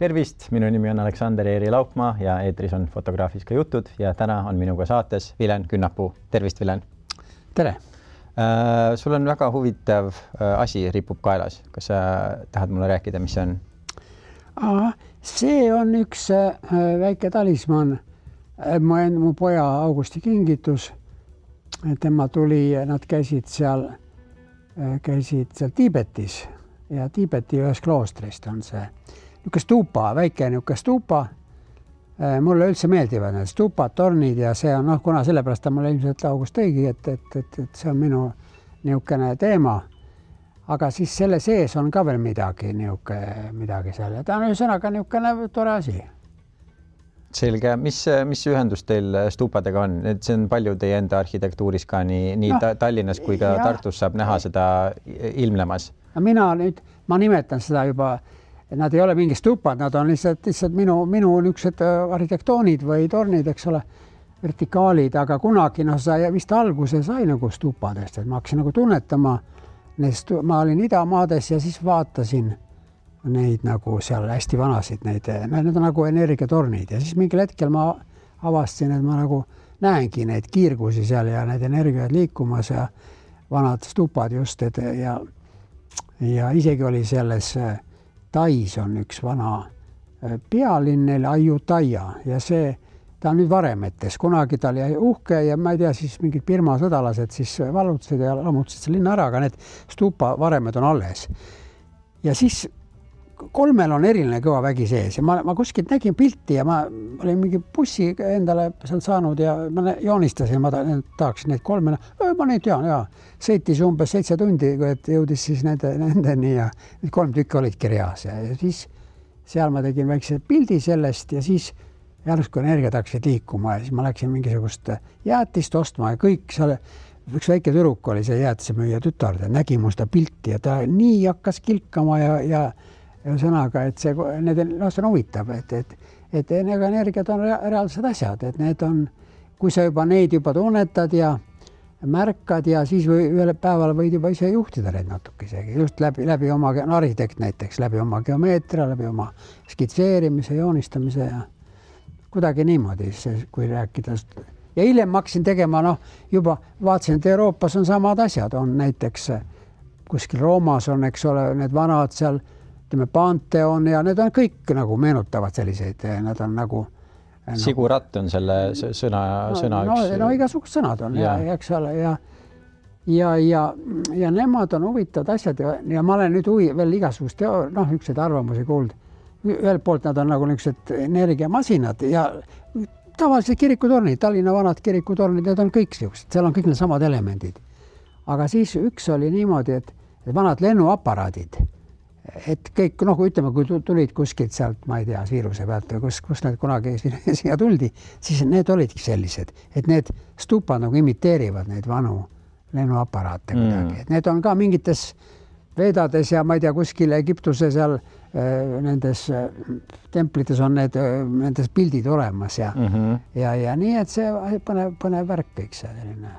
Tervist, minu nimi on Aleksander Eeri Laupmaa ja eetris on Fotograafiska jutud ja täna on minuga saates Vilen Künnapuu. Tervist, Vilen! Tere! Sul on väga huvitav asi ripub kaelas. Kas sa tahad mulle rääkida, mis see on? See on üks väike talisman. Mu poja Augusti kingitus. Tema tuli, nad käisid seal Tiibetis ja Tiibeti ühes kloostrist on see niisugune stuupa, väike niisugune stuupa. Mulle üldse meeldivad need stuupad, tornid ja see on, kuna sellepärast mulle ilmselt August tõigi, et see on minu niisugune teema. Aga siis selle sees on ka veel midagi seal. Ta on ühesõnaga niisugune tore asi. Selge. Mis ühendus teil stuupadega on? See on palju teie enda arhitektuuris ka nii Tallinnas kui ka Tartus saab näha seda ilmlemas. Ma nimetan seda juba, nad ei ole mingi stuupad, nad on lihtsalt minu niisugused arhitektoonid või tornid, eks ole, vertikaalid, aga kunagi vist alguse sai nagu stuupadest, et ma hakkasin nagu tunnetama, ma olin idamaades ja siis vaatasin neid nagu seal hästi vanasid, need on nagu energiatornid ja siis mingil hetkel ma avastasin, et ma nagu näengi neid kiirgusi seal ja need energiaid liikumas ja vanad stuupad just, ja isegi oli selles Tais on üks vana pealinn neil Ayutthaya ja ta on nüüd varemetes. Kunagi ta oli uhke ja ma ei tea, siis mingid Birma sõdalased siis vallutasid ja lammutasid selle linna ära, aga need stuupa varemed on alles. Ja siis 3 on eriline kõva vägi sees ja ma kuskilt nägin pilti ja ma olin mingi bussi endale seal saanud ja ma joonistasin, ma tahaksin neid 3. Ma neid tean, sõitis umbes 7 tundi, et jõudis siis nendeni ja need 3 tükki olid kirjas ja siis seal ma tegin väikse pildi sellest ja siis järsku energiat hakkasid liikuma ja siis ma läksin mingisugust jäätist ostma ja kõik seal, üks väike tüdruk oli see jäätisemüüja tütar, ta nägi mu seda pilti ja ta nii hakkas kilkama ja sõnaga, et see on huvitav, et energiat on reaalsed asjad, et need on, kui sa neid juba tunnetad ja märkad ja siis ühel päeval võid juba ise juhtida neid natuke isegi, just läbi oma arhitekt näiteks, läbi oma geomeetria, läbi oma skitseerimise, joonistamise ja kuidagi niimoodi, kui rääkida. Ja hiljem ma hakkasin tegema, juba vaatasin, et Euroopas on samad asjad, on näiteks kuskil Roomas on, eks ole, need vanad seal Pantheon ja need on kõik nagu meenutavad selliseid, nad on nagu Siguratt on selle sõna üks. Igasugused sõnad on eks ole ja nemad on huvitavad asjad ja ma olen nüüd veel igasugust ükseid arvamusi kuulnud. Ühelt poolt nad on nagu niisugused energiamasinad ja tavalised kirikutornid, Tallinna vanad kirikutornid, need on kõik niisugused, seal on kõik need samad elemendid. Aga siis üks oli niimoodi, et vanad lennuaparaadid, et kõik, ütleme, kui tulid kuskilt sealt, ma ei tea, Siiruse pealt või kus need kunagi siia tuldi, siis need olidki sellised, et need stuupad nagu imiteerivad neid vanu lennuaparaate kuidagi. Et need on ka mingites vedades ja ma ei tea, kuskil Egiptuse seal nendes templites on nendes pildid olemas ja nii, et see põnev värk kõik see selline.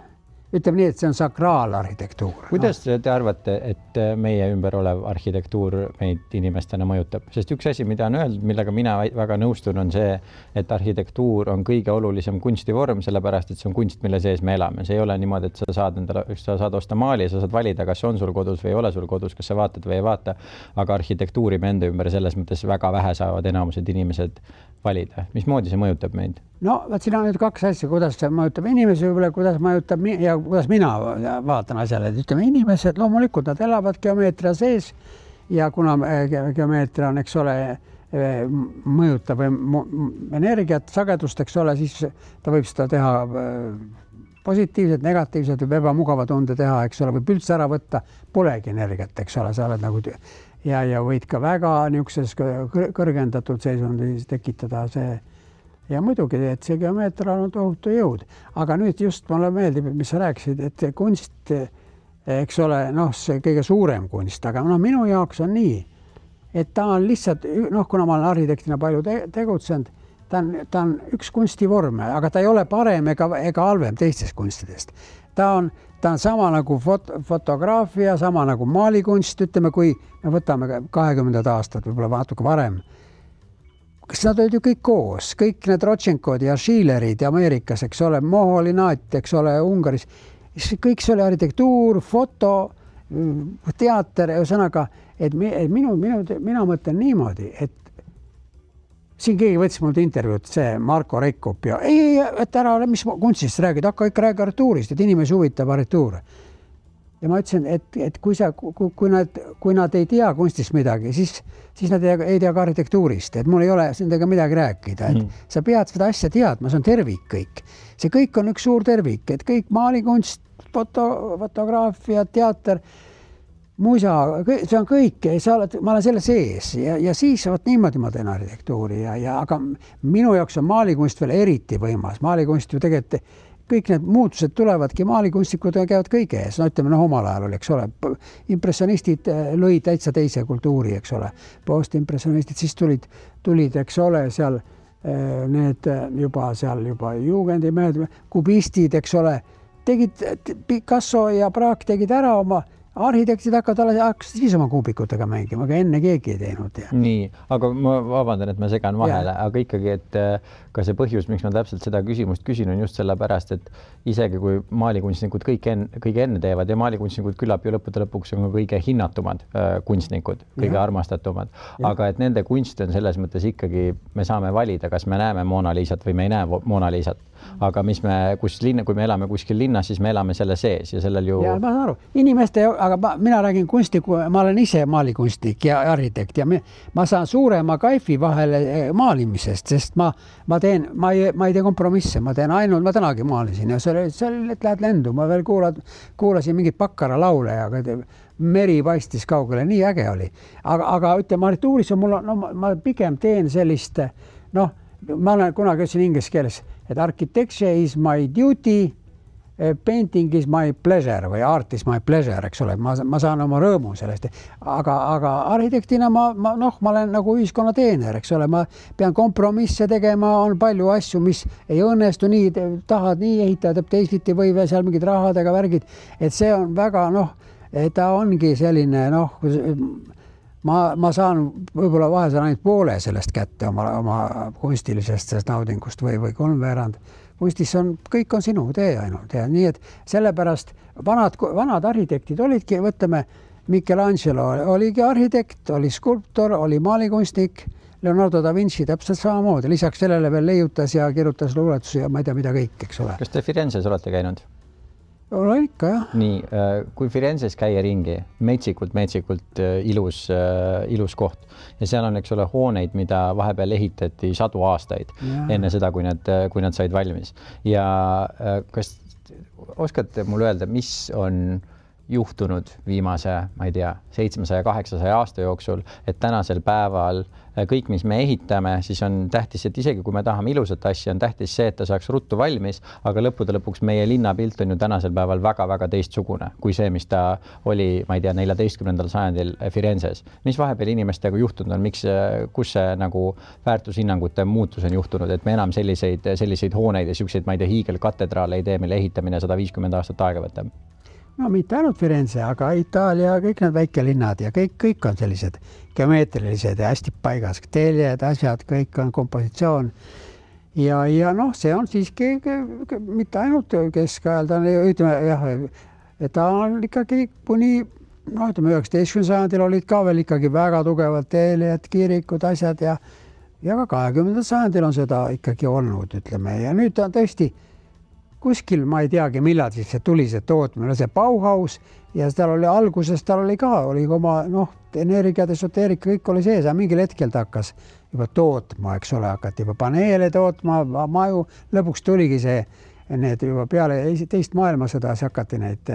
Ütleme nii, et see on sakraalarhitektuur. Kuidas te arvate, et meie ümber olev arhitektuur meid inimestena mõjutab? Sest üks asi, mida on öeldud, millega mina väga nõustun, on see, et arhitektuur on kõige olulisem kunstivorm, sellepärast, et see on kunst, mille sees me elame. See ei ole niimoodi, et sa saad osta maali ja sa saad valida, kas on sul kodus või ei ole sul kodus, kas sa vaatad või ei vaata. Aga arhitektuuri me enda ümber selles mõttes väga vähe saavad enamused inimesed valida. Mismoodi see mõjutab meid? Siin on nüüd 2 asja, kuidas see mõjutab inimesi, võib-olla kuidas mõjutab ja kuidas mina vaatan asjale. Et ütleme, inimesed loomulikult nad elavad geomeetria sees ja kuna geomeetria on, eks ole, mõjutab energiat, sagedust, eks ole, siis ta võib seda teha positiivselt, negatiivselt või ebamugava tunde teha, eks ole, võib üldse ära võtta, polegi energiat, eks ole, sa oled nagu ja võid ka väga niisuguses kõrgendatud seisundis tekitada see. Ja muidugi, et see geomeetria on tohutu jõud. Aga nüüd just mulle meeldib, mis sa rääkisid, et kunst, eks ole, see kõige suurem kunst, aga minu jaoks on nii, et ta on lihtsalt, kuna ma olen arhitektina palju tegutsenud, ta on üks kunstivorm, aga ta ei ole parem ega halvem teistest kunstidest. Ta on sama nagu fotograafia, sama nagu maalikunst, ütleme, kui me võtame 20. aastat, võib-olla natuke varem. kas nad olid ju kõik koos, kõik need Rodchenkod ja Schillerid Ameerikas, eks ole, Moholinat, eks ole, Ungaris, kõik see oli arhitektuur, foto, teater, ühesõnaga, et mina mõtlen niimoodi, et siin keegi võttis mult intervjuud, see Marko Reikup ja et ära ole, mis kunstist räägid, hakka ikka räägi arhitektuurist, et inimesi huvitab arhitektuur. Ja ma ütlesin, et kui nad ei tea kunstist midagi, siis nad ei tea ka arhitektuurist, et mul ei ole nendega midagi rääkida, et sa pead seda asja teadma, see on tervik kõik. See kõik on üks suur tervik, et kõik maalikunst, fotograafia, teater, muisa, see on kõik, ma olen selle sees ja siis niimoodi ma teen arhitektuuri aga minu jaoks on maalikunst veel eriti võimas. Maalikunst ju tegelikult kõik need muutused tulevadki, maalikunstikud käivad kõige ees, no ütleme, omal ajal oli, eks ole, impressionistid lõid täitsa teise kultuuri, eks ole, postimpressionistid, siis tulid, eks ole, seal need juba juugendi mehed, kubistid, eks ole, tegid Picasso ja Braque tegid ära oma arhitektid hakkasid siis oma kuubikutega mängima, aga enne keegi ei teinud. Ja. Nii, aga ma vabandan, et ma segan vahele, aga ikkagi, et ka see põhjus, miks ma täpselt seda küsimust küsin, on just selle pärast, et isegi kui maalikunstnikud kõige enne teevad ja maalikunstnikud küllap ju lõppude lõpuks on kõige hinnatumad kunstnikud, kõige armastatumad, aga et nende kunst on selles mõttes ikkagi, me saame valida, kas me näeme Mona Lisat või me ei näe Mona Lisat, aga kui me elame kuskil linnas, siis me elame selle sees ja sellel ju... Ja ma saan aru, inimeste aga mina räägin kunstniku, ma olen ise maalikunstnik ja arhitekt ja ma saan suurema kaifi vahele maalimisest, sest ma ei tee kompromisse, ma tänagi maalisin ja see oli, et lähed lendu, ma veel kuulasin mingit Bakkara laule, aga meri paistis kaugele, nii äge oli. Aga ütleme, arhitektuuris on ma pigem teen sellist, ma olen kunagi ütlesin inglise keeles, et architecture is my duty, painting is my pleasure või art is my pleasure, eks ole, ma saan oma rõõmu sellest, aga arhitektina ma olen nagu ühiskonna teener, eks ole, ma pean kompromisse tegema, on palju asju, mis ei õnnestu nii, tahad nii ehitada, teisiti või seal mingid rahadega värgid, et see on väga, ta ongi selline, ma saan võib-olla vahel ainult poole sellest kätte oma kunstilisest naudingust või kolmveerand. Kunstis kõik on sinu tee ainult ja nii, et sellepärast vanad arhitektid olidki, võtame, Michelangelo oligi arhitekt, oli skulptor, oli maalikunstnik, Leonardo da Vinci täpselt samamoodi, lisaks sellele veel leiutas ja kirjutas luuletusi ja ma ei tea, mida kõik, eks ole. Kas te Firenzes olete käinud? Olen ikka, jah. Nii, kui Firenzes käia ringi, metsikult ilus koht ja seal on, eks ole, hooneid, mida vahepeal ehitati 100 aastaid enne seda, kui nad said valmis. Ja kas oskate mulle öelda, mis on juhtunud viimase, ma ei tea, 700-800 aasta jooksul, et tänasel päeval kõik, mis me ehitame, siis on tähtis, et isegi kui me tahame ilusat asja, on tähtis see, et ta saaks ruttu valmis, aga lõppude lõpuks meie linnapilt on ju tänasel päeval väga-väga teistsugune kui see, mis ta oli, ma ei tea, 14. sajandil Firenzes. Mis vahepeal inimestega juhtunud on, kus see nagu väärtushinnangute muutus on juhtunud, et me enam selliseid hooneid ja selliseid, ma ei tea, hiigelkatedraale ei tee, mille ehitamine 150 aastat aega võtab? No mitte ainult Firenze, aga Itaalia, kõik need väikelinnad ja kõik on sellised geomeetrilised ja hästi paigas, teljed, asjad, kõik on kompositsioon. Ja see on siiski mitte ainult keskajal, ta on ikkagi kuni, 19. sajandil olid ka veel ikkagi väga tugevad teljed, kirikud, asjad ja ka 20. sajandil on seda ikkagi olnud, ütleme, ja nüüd on tõesti kuskil, ma ei teagi, millal siis see tuli see tootmine, see Bauhaus ja tal oli alguses, oli oma energia, esoteerika, kõik oli sees, aga mingil hetkel ta hakkas juba tootma, eks ole, hakati juba paneele tootma, maju, lõpuks tuligi need juba peale teist maailmasõda, siis hakati neid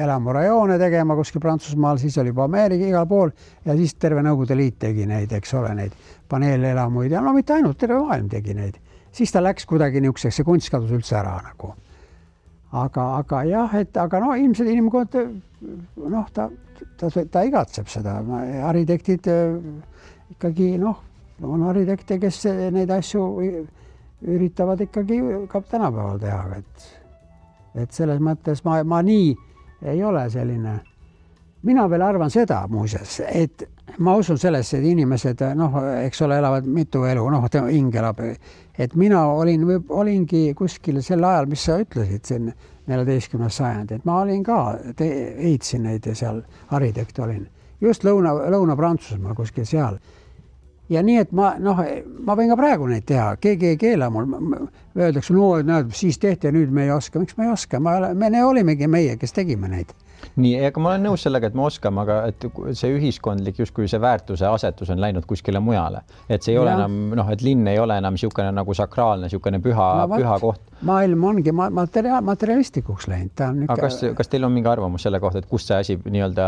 elamurajoone tegema kuskil Prantsusmaal, siis oli juba Ameerika igal pool ja siis terve Nõukogude Liit tegi neid, eks ole, neid paneelelamuid ja mitte ainult, terve maailm tegi neid. Siis ta läks kuidagi niisuguseks, see kunst kadus üldse ära nagu. Aga jah, ilmselt inimkond, ta igatseb seda. Arhitektid ikkagi, on arhitekte, kes neid asju üritavad ikkagi ka tänapäeval teha. Et selles mõttes ma nii ei ole selline. Mina veel arvan seda muuseas, et ma usun sellesse, et inimesed, eks ole, elavad mitu elu, hing elab, et mina olingi kuskil sel ajal, mis sa ütlesid, siin 14. sajand, et ma olin ka, ehitasin neid ja seal arhitekt olin, just Lõuna-Prantsusmaal kuskil seal. Ja nii, et ma võin ka praegu neid teha, keegi ei keela mul, öeldakse, siis tehti ja nüüd me ei oska, miks me ei oska, me olimegi meie, kes tegime neid. Nii, aga ma olen nõus sellega, et me oskame, aga et see ühiskondlik justkui see väärtuse asetus on läinud kuskile mujale. Et see ei ole enam, et linn ei ole enam siukene nagu sakraalne, siukene püha koht. Maailm ongi materialistikuks läinud. Aga kas teil on mingi arvamus selle kohta, et kus see asi nii-öelda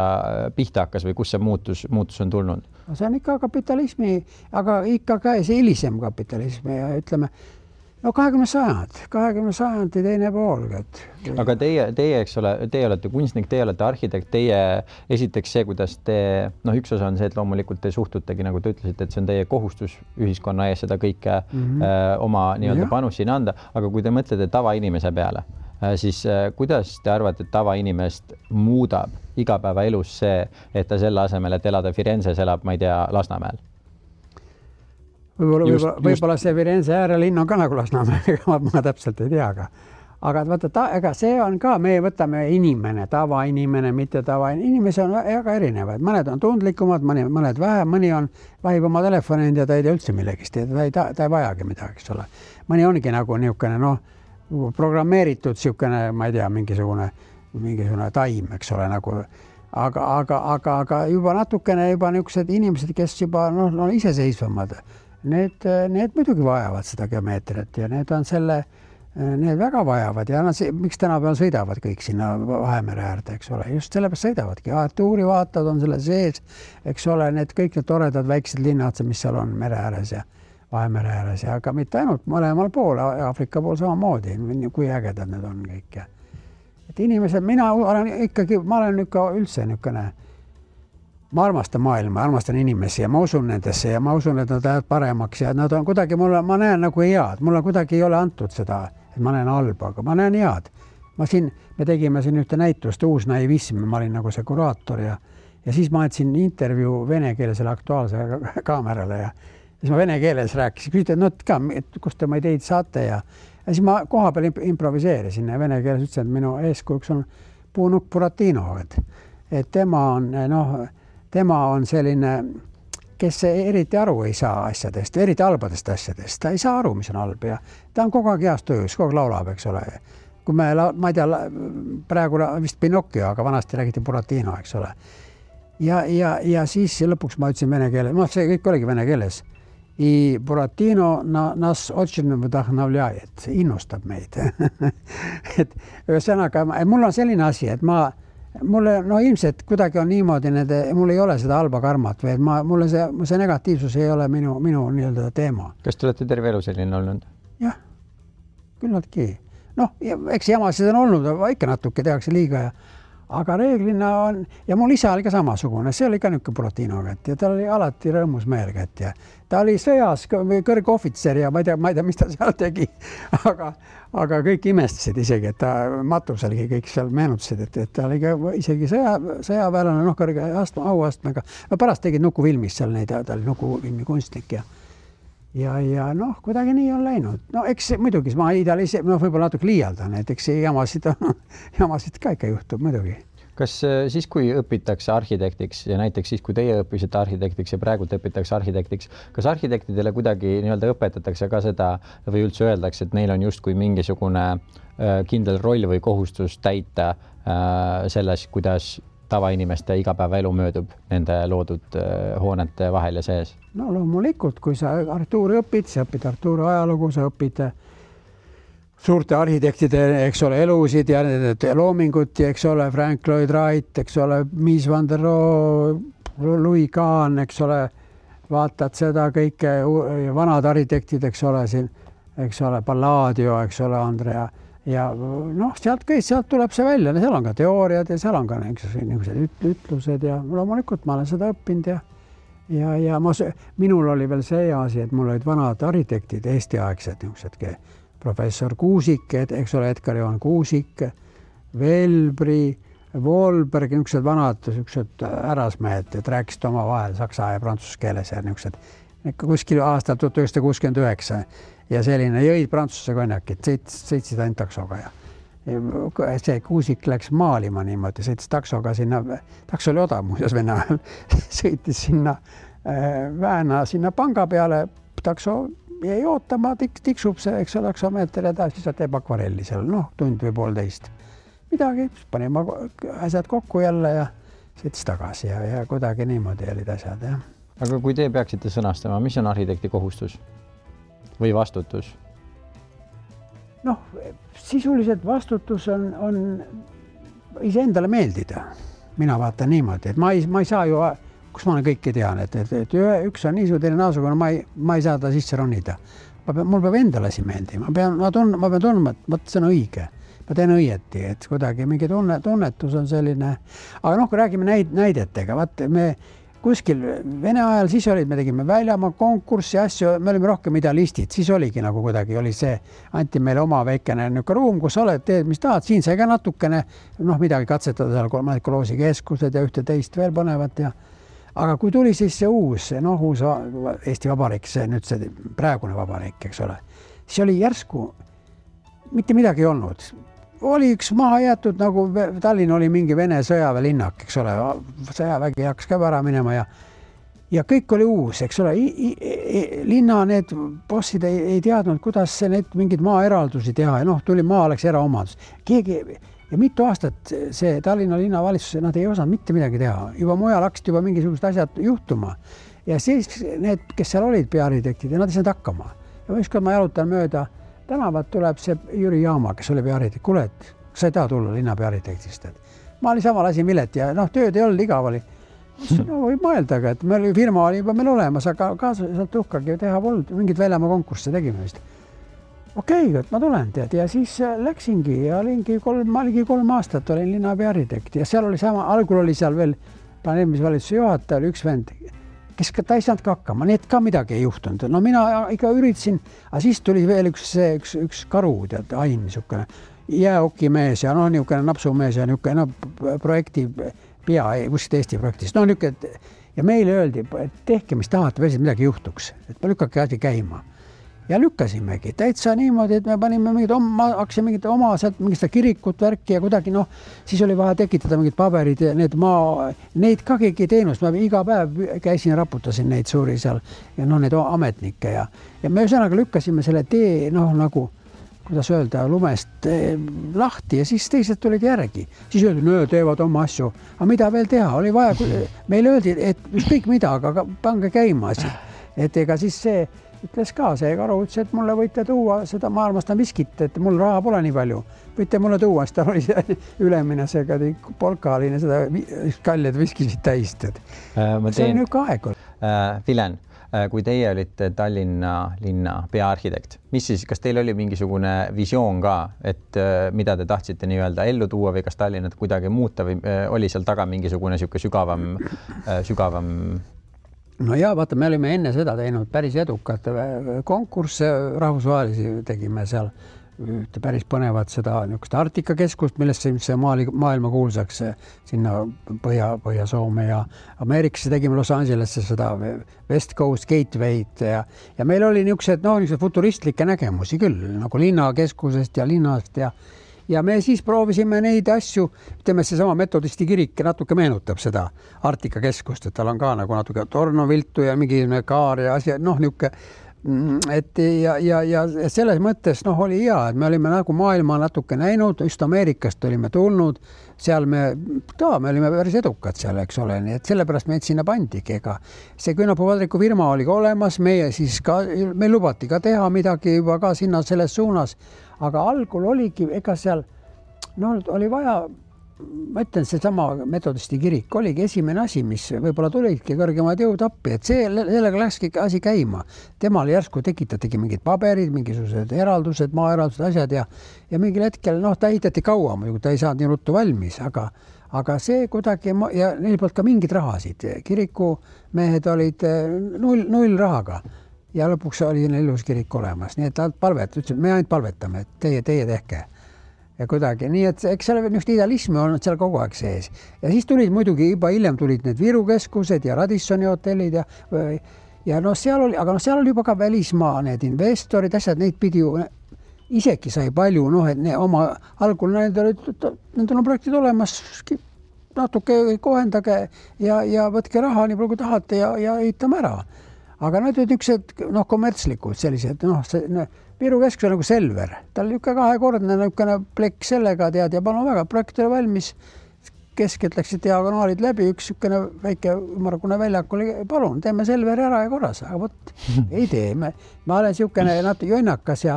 pihta hakkas või kus see muutus on tulnud? See on ikka kapitalismi, aga ikka ka see hilisem kapitalismi ja ütleme, 20. sajandi teine pool. Aga teie, eks ole, teie olete kunstnik, teie olete arhitekt, teie esiteks see, kuidas te, üks osa on see, et loomulikult te suhtutegi, nagu te ütlesite, et see on teie kohustus ühiskonna ees seda kõike oma nii-öelda panus siin anda, aga kui te mõtlete tavainimese peale, siis kuidas te arvate, et tavainimest muudab igapäevaelus see, et ta selle asemel, et elada Firenzes, elab, ma ei tea, Lasnamäel? Võib-olla see Firenze äärelinn on ka nagu Lasnamäe, ma täpselt ei tea, aga vaata, ega see on ka, me võtame inimene, tavainimene, mitte tavainimese on väga erinevad, mõned on tundlikumad, mõned vähem, mõni on vahib oma telefoni ja ta ei tea üldse millegist, ta ei vajagi midagi, eks ole. Mõni ongi nagu niisugune, programmeeritud siukene, ma ei tea, mingisugune taim, eks ole, nagu, aga juba natukene niisugused inimesed, kes juba iseseisvamad, need muidugi vajavad seda geomeetriat ja need väga vajavad ja miks tänapäeval sõidavad kõik sinna Vahemere äärde, eks ole, just sellepärast sõidavadki. Tuurivaatad on selle sees, eks ole, kõik need toredad väiksed linnad, mis seal on mere ääres ja Vahemere ääres ja aga mitte ainult mõlemal pool, Aafrika pool samamoodi, kui ägedad need on kõik. Et inimesed, ma olen ikka üldse niisugune, ma armastan maailma, armastan inimesi ja ma usun nendesse ja ma usun, et nad lähevad paremaks ja nad on kuidagi, ma näen nagu head, mulle kuidagi ei ole antud seda, et ma näen halba, aga ma näen head. Me tegime siin ühte näitust, Uus naivism, ma olin nagu see kuraator ja siis ma andsin intervjuu vene keelesele Aktuaalse kaamerale ja siis ma vene keeles rääkisin, küsisin, et kust te ma ideid saate ja siis ma koha peal improviseerisin ja vene keeles ütlesin, et minu eeskujuks on Puunuk Buratino, et tema on selline, kes eriti aru ei saa asjadest, eriti halbadest asjadest. Ta ei saa aru, mis on halb ja ta on kogu aeg heas töös, kogu aeg laulab, eks ole. Kui ma ei tea, praegu vist Pinocchio, aga vanasti räägiti Buratino, eks ole. Ja siis lõpuks ma ütlesin vene keeles, see kõik oligi vene keeles. I Buratino nas очень вдохновляет, innustab meid. Et ühesõnaga, mul on selline asi, et mulle ilmselt kuidagi on niimoodi, mul ei ole seda halba karmat või mulle see negatiivsus ei ole minu nii-öelda teema. Kas te olete terve elu selline olnud? Jah, küllaltki. Eks jamasid on olnud, ikka natuke tehakse liiga aga reeglina on, ja mul isa oli ka samasugune, see oli ka niisugune Buratino kätt ja ta oli alati rõõmus meel kätt ja ta oli sõjas kõrgohvitser ja ma ei tea, mis ta seal tegi, aga kõik imestasid isegi, et ta matuselgi kõik seal meenutasid, et ta oli ka isegi sõjaväelane, kõrge auastmega. Pärast tegid Nukufilmis seal neid, ta oli Nukufilmi kunstnik ja kuidagi nii on läinud. Eks muidugi, ma võib-olla natuke liialdan, et eks jamasid ka ikka juhtub muidugi. Kas siis, kui õpitakse arhitektiks ja näiteks siis, kui teie õppisite arhitektiks ja praegult õpitakse arhitektiks, kas arhitektidele kuidagi nii-öelda õpetatakse ka seda või üldse öeldakse, et neil on justkui mingisugune kindel roll või kohustus täita selles, kuidas tavainimeste igapäevaelu möödub nende loodud hoonete vahel ja sees? Loomulikult, kui sa Artuuri õpid, sa õpid Artuuri ajalugu, sa õpid suurte arhitektide, eks ole, elusid ja loomingut, eks ole, Frank Lloyd Wright, eks ole, Mies van der Rohe, Louis Kahn, eks ole, vaatad seda kõike, vanad arhitektid, eks ole, siin, eks ole, Palladio, eks ole, Andrea ja sealt tuleb see välja, seal on ka teooriad ja seal on ka niisugused ütlused ja loomulikult ma olen seda õppinud ja minul oli veel see asi, et mul olid vanad arhitektid, Eesti-aegsed niisugused, professor Kuusik, eks ole, Edgar Johan Kuusik, Velbri, Wolberg, niisugused vanad, niisugused härrasmehed, et rääkisid oma vahel saksa ja prantsuse keeles ja niisugused kuskil aastal 1969 ja selline jõid prantsuse konjakit, sõitsid ainult taksoga ja see Kuusik läks maalima niimoodi, sõitis taksoga sinna, takso oli odav muuseas Vene ajal, sõitis sinna Vääna sinna panga peale, takso jäi ootama, tiksub see, eks ole, taksomeeter ja siis teeb akvarelli seal, tund või poolteist. Midagi, panime asjad kokku jälle ja sõitis tagasi ja kuidagi niimoodi olid asjad. Ja. Aga kui te peaksite sõnastama, mis on arhitekti kohustus või vastutus? Sisuliselt vastutus on iseendale meeldida. Mina vaatan niimoodi, et ma ei saa ju, kus ma olen kõike tean, et üks on niisugune, teine naasugune, ma ei saa ta sisse ronida. Mul peab endale siin meeldima. Ma pean tundma, et see on õige. Ma teen õieti, et kuidagi mingi tunnetus on selline. Aga kui räägime näidetega, me kuskil Vene ajal siis olid, me tegime väljamaa konkurssi asju, me olime rohkem idealistid, siis oligi nagu kuidagi oli see, anti meile oma väikene ruum, kus oled, teed, mis tahad, siin sai ka natukene midagi katsetada seal koloosi keskused ja ühte teist veel põnevat ja aga kui tuli siis see uus Eesti Vabariik, see nüüd see praegune vabariik, eks ole, siis oli järsku mitte midagi ei olnud. Oli üks maha jäetud, nagu Tallinn oli mingi Vene sõjaväelinnak, eks ole, sõjavägi hakkas ka ära minema ja kõik oli uus, eks ole, linna need bossid ei teadnud, kuidas need mingid maaeraldusi teha ja tuli maa oleks eraomadus. Ja mitu aastat see Tallinna linnavalitsus, nad ei osanud mitte midagi teha, juba mujal hakkasid juba mingisugused asjad juhtuma ja siis need, kes seal olid peaarhitektid ja nad ei saanud hakkama ja ükskord ma jalutan mööda tänavat tuleb see Jüri Jaama, kes oli peaarhitekt. Kuule, et sa ei taha tulla linna peaarhitektist. Ma olin sama lasin Mileti ja tööd ei olnud, igav oli. Võib mõeldaga, et firma oli juba meil olemas, aga kaasaliselt uhkagi teha polnud. Mingid väljamaa konkursse tegime vist. Okei, et ma tulen tead ja siis läksingi ja ma oligi 3 aastat olin linna peaarhitekt ja seal oli sama, algul oli seal veel planeerimisvalitsuse juhataja, oli üks vend, kes ta ei saanud ka hakkama, nii et ka midagi ei juhtunud. Mina ikka üritasin, aga siis tuli veel üks karu, tead, Ain, niisugune jääokimees ja niisugune napsumees ja niisugune projekti pea, kuskilt Eesti projektist. Ja meile öeldi, et tehke, mis tahate, veel midagi juhtuks, et ma lükkake asi käima. Ja lükkasimegi täitsa niimoodi, et me panime hakkasime mingit oma sealt mingit kirikut värki ja kuidagi siis oli vaja tekitada mingid paberid ja neid ka keegi teenust, ma iga päev käisin ja raputasin neid suuri seal ja neid ametnikke ja me ühesõnaga lükkasime selle tee nagu, kuidas öelda, lumest lahti ja siis teised tulid järgi. Siis öeldi, teevad oma asju, aga mida veel teha, oli vaja, meile öeldi, et ükskõik mida, aga pange käima asi, et ega siis see ütles ka see karu, ütles, et mulle võite tuua seda, ma armastan viskit, et mul raha pole nii palju. Võite mulle tuua, siis tal oli see ülemine, see polkaline, seda kaljad viskisid täist. See on niisugune aeg. Vilen, kui teie olite Tallinna linna peaarhitekt, kas teil oli mingisugune visioon ka, et mida te tahtsite nii-öelda ellu tuua või kas Tallinnat kuidagi muuta või oli seal taga mingisugune sügavam No ja vaata, me olime enne seda teinud päris edukat konkursse, rahvusvahelisi tegime seal päris põnevat seda niisugust Arktika keskust, millest see maailma kuulsaks sinna Põhja-Soome ja Ameerikasse tegime Los Angelesse seda West Coast Gateway'd ja meil oli niisugused futuristlikke nägemusi küll, nagu linnakeskusest ja linnast ja me siis proovisime neid asju, ütleme, see sama metodisti kirik natuke meenutab seda Arktika keskust, et tal on ka nagu natuke tornoviltu ja mingi kaar ja asja, niisugune, et ja selles mõttes oli hea, et me olime nagu maailma natuke näinud, just Ameerikast olime tulnud, seal me olime päris edukad seal, eks ole, nii et sellepärast meid sinna pandigi, ega see Küünapuu-Vadriku firma oli ka olemas, meil lubati ka teha midagi juba ka sinna selles suunas, aga algul oligi, ega seal oli vaja, ma ütlen, see sama metodisti kirik oligi esimene asi, mis võib-olla tulidki kõrgemad jõud appi, et sellega läkski asi käima. Temal järsku tekitatigi mingid paberid, mingisugused eraldused, maaeraldused, asjad ja mingil hetkel, ta ehitati kaua, ta ei saanud nii ruttu valmis, aga see kuidagi, ja neil polnud ka mingid rahasid. Kirikumehed olid null rahaga ja lõpuks oli neil ilus kirik olemas, nii et ta ütles, me ainult palvetame, et teie tehke. ja kuidagi, nii et eks seal niisugust idealismi on seal kogu aeg sees. Ja siis tulid muidugi juba hiljem tulid need Viru keskused ja Radissoni hotellid ja no seal oli, aga no seal oli juba ka välismaa need investorid, asjad, neid pidi ju isegi sai palju, noh, et oma algul nendel on projektid olemas, natuke kohendage ja võtke raha nii palju kui tahate ja ehitame ära. Aga need olid niisugused kommertslikud sellised, Viru keskus on nagu Selver, tal oli kahekordne niisugune plekk sellega tead ja palun väga, projekt oli valmis, keskelt läksid diagonaalid läbi, üks niisugune väike ümargune väljak oli, palun, teeme Selveri ära ja korras, aga võt, ei tee, ma olen niisugune natuke jonnakas ja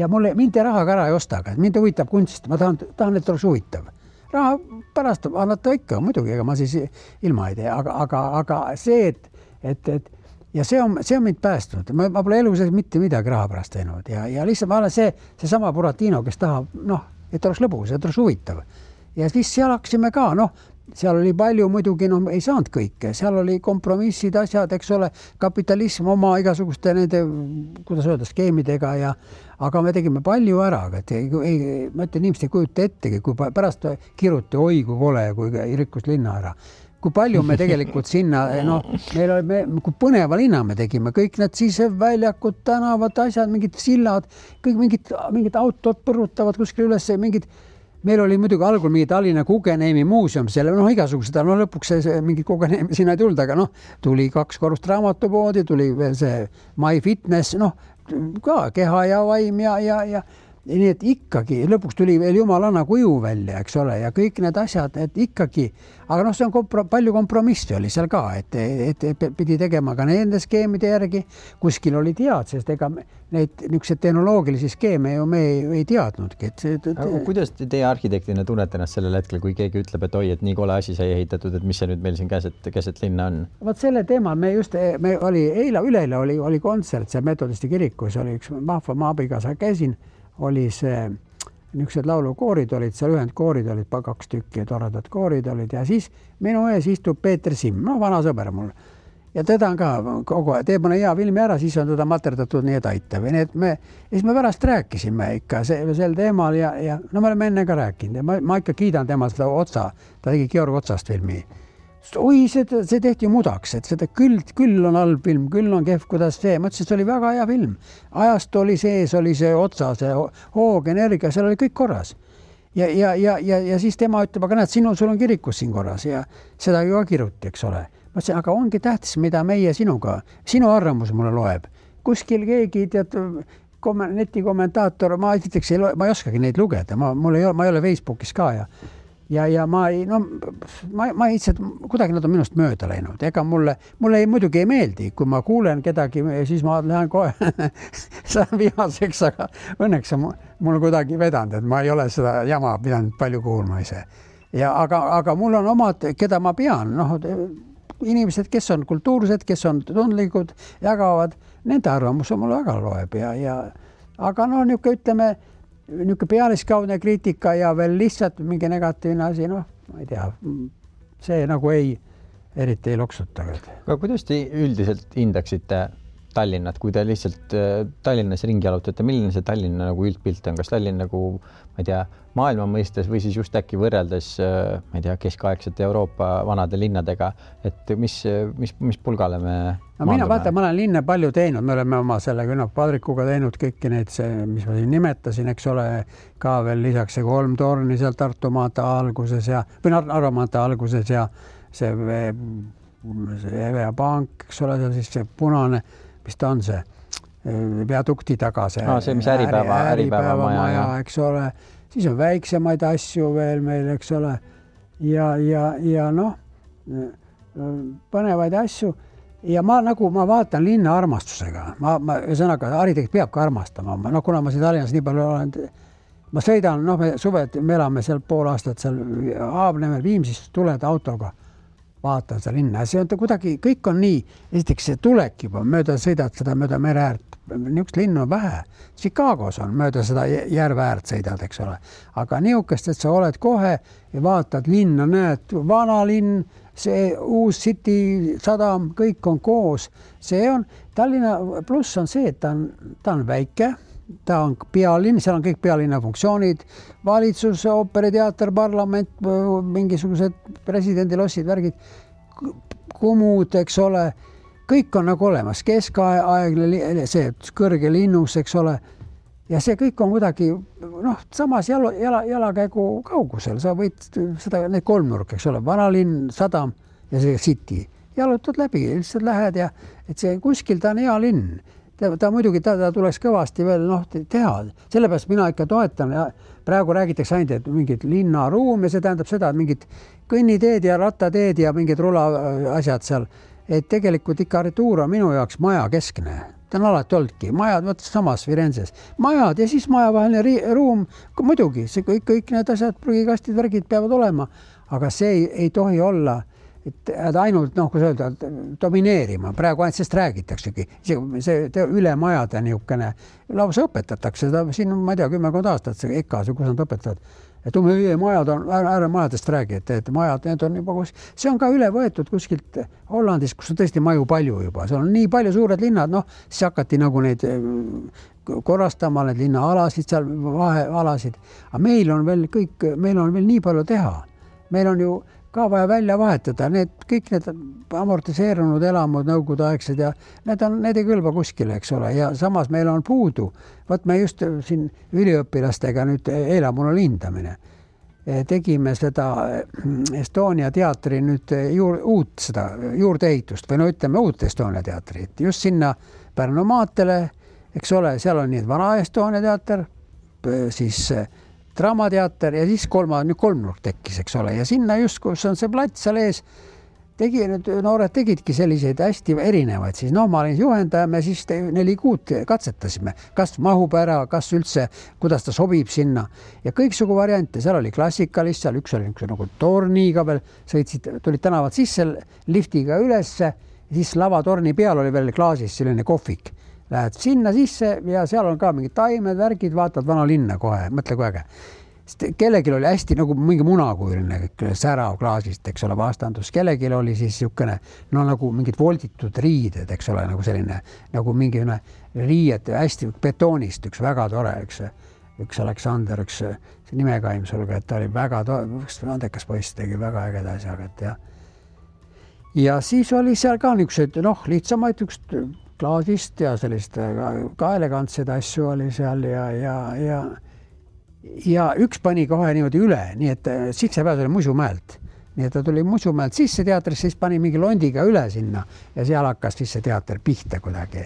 mind rahaga ära ei osta, aga mind huvitab kunst, ma tahan, et oleks huvitav. Raha pärast annata ikka, muidugi, ega ma siis ilma ei tee, aga see, et ja see on mind päästnud. Ma pole elu sees mitte midagi raha pärast teinud ja lihtsalt ma olen see sama Buratino, kes tahab, et oleks lõbus, et oleks huvitav. Ja siis seal hakkasime ka, seal oli palju muidugi, ei saanud kõike, seal oli kompromissid, asjad, eks ole, kapitalism oma igasuguste nende, kuidas öelda, skeemidega aga me tegime palju ära, ma ütlen, inimesed ei kujuta ettegi, kui pärast kiruti, oi kui kole, kui rikkus linna ära. Kui palju me tegelikult sinna, kui põneva linna me tegime, kõik need siseväljakud, tänavad, asjad, mingid sillad, kõik mingid autod põrutavad kuskil üles, meil oli muidugi algul mingi Tallinna Guggenheimi muuseum, selle igasugused, lõpuks mingid Guggenheimi sinna ei tulnud, aga tuli 2 korrust raamatupoodi, tuli veel see My Fitness, ka keha ja vaim ja nii et ikkagi lõpuks tuli veel jumalanna kuju välja, eks ole, ja kõik need asjad, et ikkagi, aga see on palju kompromissi oli seal ka, et pidi tegema ka nende skeemide järgi, kuskil oli tead, sest ega neid niisuguseid tehnoloogilisi skeeme ju me ei teadnudki. Kuidas teie arhitektina tunnete ennast sellel hetkel, kui keegi ütleb, et oi, et nii kole asi sai ehitatud, et mis see nüüd meil siin keset linna on? Vaat selle teemal üleeile oli kontsert, see Metodisti kirikus oli üks vahva maabiga, sa käisin, oli see niisugused laulukoorid olid, seal ühendkoorid olid 2 tükki, toredad koorid olid ja siis minu ees istub Peeter Simm, vana sõber mul. Ja teda on ka kogu aeg, teeb mõne hea filmi ära, siis on teda materdatud nii, et aitab. Ja siis me pärast rääkisime ikka sel teemal ja me oleme enne ka rääkinud ja ma ikka kiidan tema seda Otsa, ta tegi Georg Otsast filmi. Oi, see tehti mudaks, et seda küll on halb film, küll on kehv, kuidas see. Ma ütlesin, et see oli väga hea film. Ajast oli sees, oli see Otsa, see hoog, energia, seal oli kõik korras. Ja siis tema ütleb, aga näed, sul on kirikus siin korras ja seda ju ka kiruti, eks ole. Ma ütlesin, aga ongi tähtis, mida meie sinuga, sinu arvamus mulle loeb. Kuskil keegi, netikommentaator, ma ei oskagi neid lugeda, ma ei ole Facebookis ka ja ma ei lihtsalt, kuidagi nad on minust mööda läinud. Ega mulle muidugi ei meeldi, kui ma kuulen kedagi, siis ma lähen kohe saan vihaseks, aga õnneks on mul kuidagi vedanud, et ma ei ole seda jama pidanud palju kuulma ise. Aga mul on omad, keda ma pean, inimesed, kes on kultuursed, kes on tundlikud, jagavad, nende arvamus on mulle väga loeb aga niisugune, ütleme, niisugune pealiskaudne kriitika ja veel lihtsalt mingi negatiivne asi, ma ei tea, see nagu eriti ei loksuta. Aga kuidas te üldiselt hindaksite Tallinnat, kui te lihtsalt Tallinnas ringi jalutate, milline see Tallinna nagu üldpilt on? Kas Tallinn nagu, ma ei tea, maailma mõistes või siis just äkki võrreldes, ma ei tea, keskaegsete Euroopa vanade linnadega, et mis pulgale me ma olen linna palju teinud, me oleme oma selle Padrikuga teinud kõiki neid, mis ma siin nimetasin, eks ole, ka veel lisaks see 3 torni seal Tartu maanta alguses või Narva maanta alguses ja see Evea Pank, eks ole, seal siis see punane, mis ta on see viadukti taga, see mis äripäeva maja, eks ole, siis on väiksemaid asju veel meil, eks ole, ja põnevaid asju ja ma vaatan linna armastusega, ühesõnaga arhitekt peab ka armastama, kuna ma siin Tallinnas nii palju olen, ma sõidan, me elame seal pool aastat seal Haabnemel Viimsist tuled autoga, vaatan seda linna ja see on kuidagi, kõik on nii, esiteks see tulek juba, sõidad seda mööda mere äärt, niisugust linnu on vähe, Chicagos on mööda seda järve äärt sõidad, eks ole, aga niisugust, et sa oled kohe ja vaatad linna, näed, vana linn, see uus City sadam, kõik on koos, see on, Tallinna pluss on see, et ta on väike, ta on pealinn, seal on kõik pealinna funktsioonid, valitsus, ooperiteater, parlament, mingisugused presidendilossid, värgid, kumud, eks ole, kõik on nagu olemas, keskaegne, see kõrge linnus, eks ole, ja see kõik on kuidagi, samas jalakäigu kaugusel, sa võid seda, need kolmnurk, eks ole, vanalinn, sadam ja see city, jalutad läbi, lihtsalt lähed ja et see kuskil ta on hea linn. Ta muidugi ta tuleks kõvasti veel teha. Sellepärast mina ikka toetan ja praegu räägitakse ainult, et mingid linnaruum ja see tähendab seda, et mingid kõnniteed ja rattateed ja mingid rula asjad seal, et tegelikult ikka arhitektuur on minu jaoks maja keskne. Ta on alati oldki. Majad, võttes samas Firenzes. Majad ja siis majavaheline ruum, muidugi, see kõik need asjad, prügikastid, värgid peavad olema, aga see ei tohi olla et ainult, kui sa öelda, domineerima. Praegu ainult sest räägitaksegi. See ülemajade niisugune lausa õpetatakse. Siin on, ma ei tea, 10 aastat see EKA-s, kus nad õpetavad. Et majad on, majadest räägi, et majad, need on juba see on ka üle võetud kuskilt Hollandis, kus on tõesti maju palju juba. See on nii palju suured linnad, siis hakati nagu neid korrastama, need linnaalasid, seal vahealasid. Aga meil on veel nii palju teha. Meil on ju ka vaja välja vahetada. Kõik need amortiseerunud elamud, nõukogudeaegsed ja need ei kõlba kuskile, eks ole. Ja samas meil on puudu. Võt me just siin üliõpilastega nüüd eile mul oli hindamine. Tegime seda Estonia teatri nüüd uut seda juurdeehitust või ütleme uut Estonia teatrit. Just sinna Pärnu maantele, eks ole, seal on nii vana Estonia teater, siis Draamateater ja siis kolmnurk tekkis, eks ole. Ja sinna just, kus on see plats seal ees, noored tegidki selliseid hästi erinevaid. Siis ma olin juhendaja, me siis 4 kuud katsetasime, kas mahub ära, kas üldse, kuidas ta sobib sinna. Ja kõiksugu variante, seal oli klassikalist, seal üks oli nagu torniga veel, tulid tänavad sisse liftiga ülesse, siis lavatorni peal oli veel klaasis selline kohvik. Lähed sinna sisse ja seal on ka mingid taimed, värgid, vaatad vana linna kohe, mõtle kui äge. Kellegil oli hästi nagu mingi munakujuline särav klaasist, eks ole, vastandus. Kellegil oli siis niisugune, nagu mingid volditud riided, eks ole, nagu selline, nagu mingi riied hästi betoonist, üks väga tore, üks Aleksander, üks nimekaim sulga, et ta oli väga andekas poiss, tegi väga ägeda asjaga. Ja siis oli seal ka niisugused, lihtsamaid klaasist ja sellist ka elegantsed asju oli seal ja üks pani kohe niimoodi üle, nii et sissepääs oli Musumäelt. Nii et ta tuli Musumäelt sisse teatrisse, siis pani mingi londiga üle sinna ja seal hakkas siis see teater pihta kuidagi.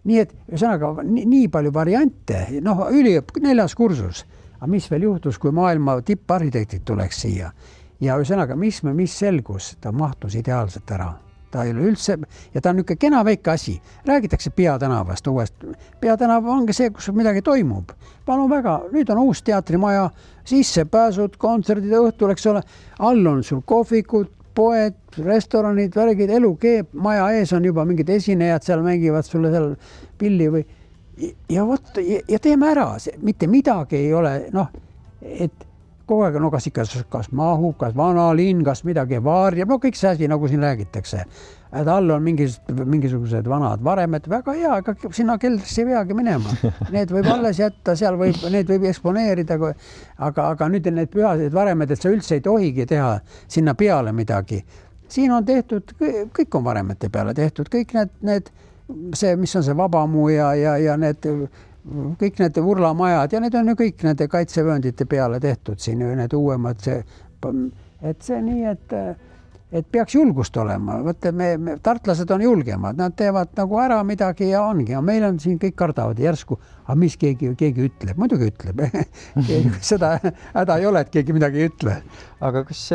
Nii et ühesõnaga nii palju variante, 4. kursus. Aga mis veel juhtus, kui maailma tipparhitektid tuleks siia? Ja ühesõnaga, mis selgus, ta mahtus ideaalselt ära. Ta ei ole üldse, ja ta on niisugune kena väike asi. Räägitakse Peatänavast uuest. Peatänav ongi see, kus midagi toimub. Palun väga, nüüd on uus teatrimaja, sissepääsud, kontserdid õhtul, eks ole. All on sul kohvikud, poed, restoranid, värgid, elu keeb, maja ees on juba mingid esinejad, seal mängivad sulle seal pilli või ja teeme ära, mitte midagi ei ole, et kogu aeg kas mahub, kas vana linn, kas midagi varjab, kõik see asi, nagu siin räägitakse. Et all on mingisugused vanad varemed, väga hea, aga sinna keldrisse ei peagi minema. Need võib alles jätta, need võib eksponeerida, aga nüüd need pühased varemed, et sa üldse ei tohigi teha sinna peale midagi. Siin on tehtud, kõik on varemete peale tehtud, kõik see, mis on see Vabamuu ja need kõik need urlamajad ja need on ju kõik nende kaitsevööndite peale tehtud siin, need uuemad, et see nii, et peaks julgust olema. Võtte, tartlased on julgemad, nad teevad nagu ära midagi ja ongi. Ja meil on siin kõik kardavad järsku, aga mis keegi ütleb, muidugi ütleb. Seda häda ei ole, et keegi midagi ei ütle. Aga kas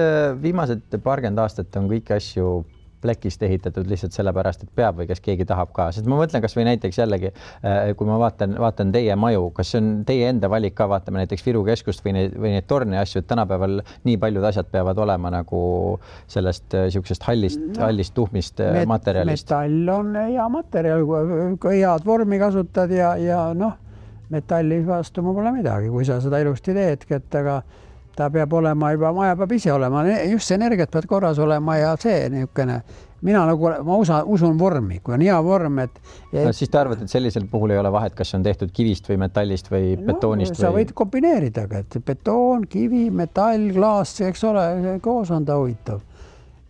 viimased 20 aastat on kõiki asju plekist ehitatud lihtsalt sellepärast, et peab või kas keegi tahab ka. Sest ma mõtlen kas või näiteks jällegi, kui ma vaatan teie maju, kas see on teie enda valik ka, vaatame näiteks Viru keskust või neid torni asju, et tänapäeval nii paljud asjad peavad olema nagu sellest siuksest hallist tuhmist materjalist. Metall on hea materjal, kui head vormi kasutad ja metalli vastu ma pole midagi, kui sa seda ilusti teedki, et aga ta peab olema juba, maja peab ise olema, just see energiat peab korras olema ja see niisugune mina nagu, ma usun vormi, kui on hea vorm, et no, siis te arvate, et sellisel puhul ei ole vahet, kas on tehtud kivist või metallist või betoonist sa või... võid kombineerida, et betoon, kivi, metall, klaas, eks ole, koos on ta huvitav.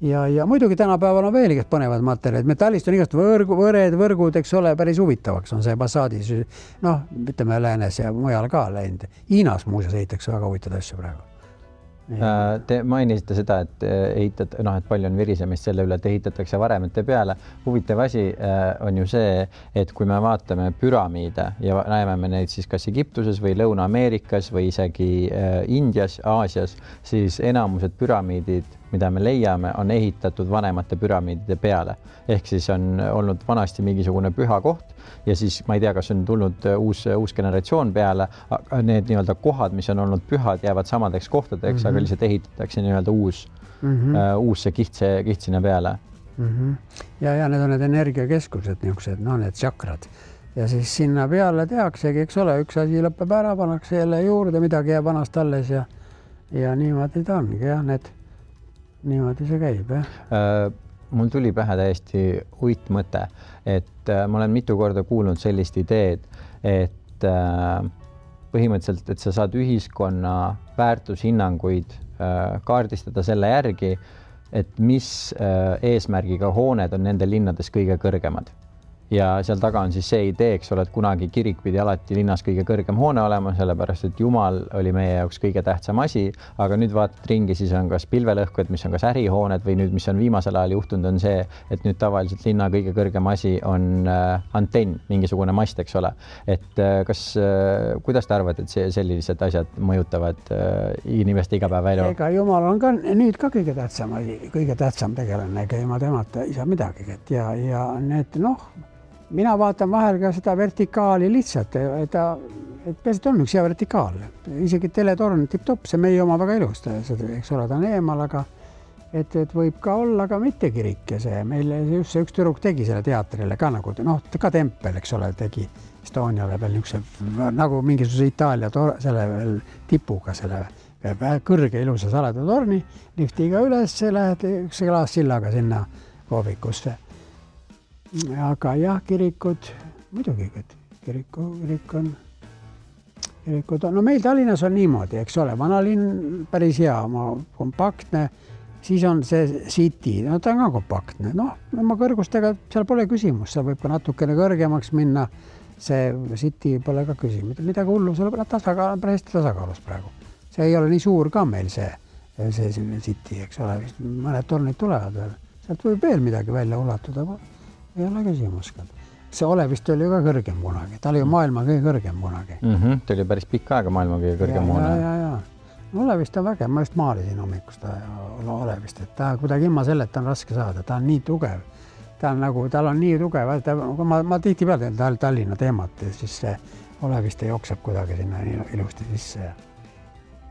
Ja muidugi tänapäeval on veel igast põnevad materjalid. Metallist on igast võrgud, eks ole, päris huvitavaks on see Passadis. Noh, ütleme läänes ja mujal ka läinud. Hiinas muuseas ehitakse väga huvitavad asju praegu. Te mainisite seda, et et palju on virisemist selle üle, et ehitatakse varemete peale. Huvitav asi on ju see, et kui me vaatame püramiide ja näeme me neid siis kas Egiptuses või Lõuna-Ameerikas või isegi Indias, Aasias, siis enamused püramiidid, mida me leiame, on ehitatud vanemate püramiidide peale. Ehk siis on olnud vanasti mingisugune püha koht ja siis ma ei tea, kas on tulnud uus generatsioon peale, need nii-öelda kohad, mis on olnud pühad, jäävad samadeks kohtadeks, aga lihtsalt ehitatakse nii-öelda uus see kiht sinna peale. Ja need on need energiakeskused, niisugused, need tsakrad. Ja siis sinna peale tehaksegi, eks ole, üks asi lõpeb ära, pannakse jälle juurde, midagi jääb vanast alles ja niimoodi ta ongi, jah, niimoodi see käib, jah. Mul tuli pähe täiesti uitmõte, et ma olen mitu korda kuulnud sellist ideed, et põhimõtteliselt, et sa saad ühiskonna väärtushinnanguid kaardistada selle järgi, et mis eesmärgiga hooned on nende linnades kõige kõrgemad. Ja seal taga on siis see idee, eks ole, et kunagi kirik pidi alati linnas kõige kõrgem hoone olema, sellepärast, et Jumal oli meie jaoks kõige tähtsam asi, aga nüüd vaatad ringi, siis on kas pilvelõhkujad, mis on kas ärihooned või nüüd, mis on viimasel ajal juhtunud, on see, et nüüd tavaliselt linna kõige kõrgem asi on antenn, mingisugune mast, eks ole. Et kuidas te arvate, et sellised asjad mõjutavad inimeste igapäevaelu? Ega Jumal on ka nüüd ka kõige tähtsam asi, kõige tähtsam tegelane, ega ilma temata ei saa midagi. Ja need, mina vaatan vahel ka seda vertikaali lihtsalt, et peaasi on üks hea vertikaal. Isegi teletorn tipp-topp, see meie oma väga ilus, eks ole, ta on eemal, aga et võib ka olla ka mitte kirik ja see. Meil just see üks tüdruk tegi selle teatrile ka nagu, ka tempel, eks ole, tegi Estoniale veel niisuguse nagu mingisuguse Itaalia selle veel tipuga, selle kõrge ilusa saleda torni, liftiga üles, lähed üks klaassillaga sinna koovikusse. Aga jah, kirikud, muidugi, et kirik on, no meil Tallinnas on niimoodi, eks ole, vanalinn päris hea, kompaktne, siis on see City, ta on ka kompaktne, oma kõrgustega seal pole küsimus, seal võib ka natukene kõrgemaks minna, see City pole ka küsimus, midagi hullu, see on päris tasakaalus praegu. See ei ole nii suur ka meil see City, eks ole, mõned tornid tulevad veel, sealt võib veel midagi välja ulatuda, ei ole küsimus. See Olevist oli ju ka kõrgem kunagi. Ta oli ju maailma kõige kõrgem kunagi. Ta oli päris pikka aega maailma kõige kõrgem hoone. Ja. Olevist on vägev. Ma just maalisin hommikust Olevist. Et ta kuidagi ilma selleta on raske saada. Ta on nii tugev. Tal on nii tugev. Ma tihti peale Tallinna teemat ja siis see Olevist jookseb kuidagi sinna ilusti sisse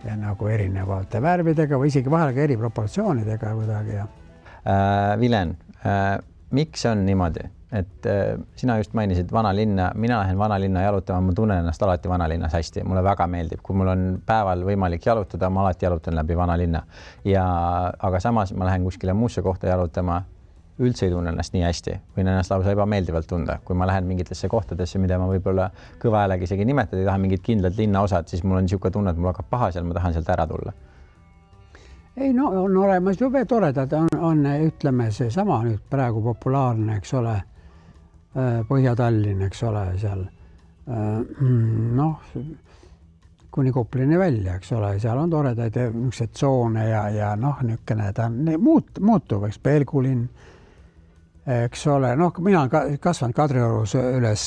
ja nagu erinevate värvidega või isegi vahel ka eri proportsioonidega kuidagi. Vilen, miks on niimoodi, et sina just mainisid vanalinna, mina lähen vanalinna jalutama, ma tunnen ennast alati vanalinnas hästi, mulle väga meeldib, kui mul on päeval võimalik jalutada, ma alati jalutan läbi vanalinna. Aga samas ma lähen kuskile muusse kohta jalutama, üldse ei tunne ennast nii hästi, võin ennast lausa ebameeldivalt tunda, kui ma lähen mingitesse kohtadesse, mida ma võib-olla kõva häälega isegi nimetada, ei taha mingit kindlat linnaosad, siis mul on niisugune tunne, et mul hakkab paha seal, ma tahan sealt ära tulla. Ei, on olemas jube toredad, on ütleme see sama nüüd praegu populaarne, eks ole, Põhja-Tallinn, eks ole, seal kuni Koplini välja, eks ole, seal on toredaid niisugused tsoone ja niisugune ta muutub, eks Pelgulinn, eks ole, mina olen kasvanud Kadriorus üles,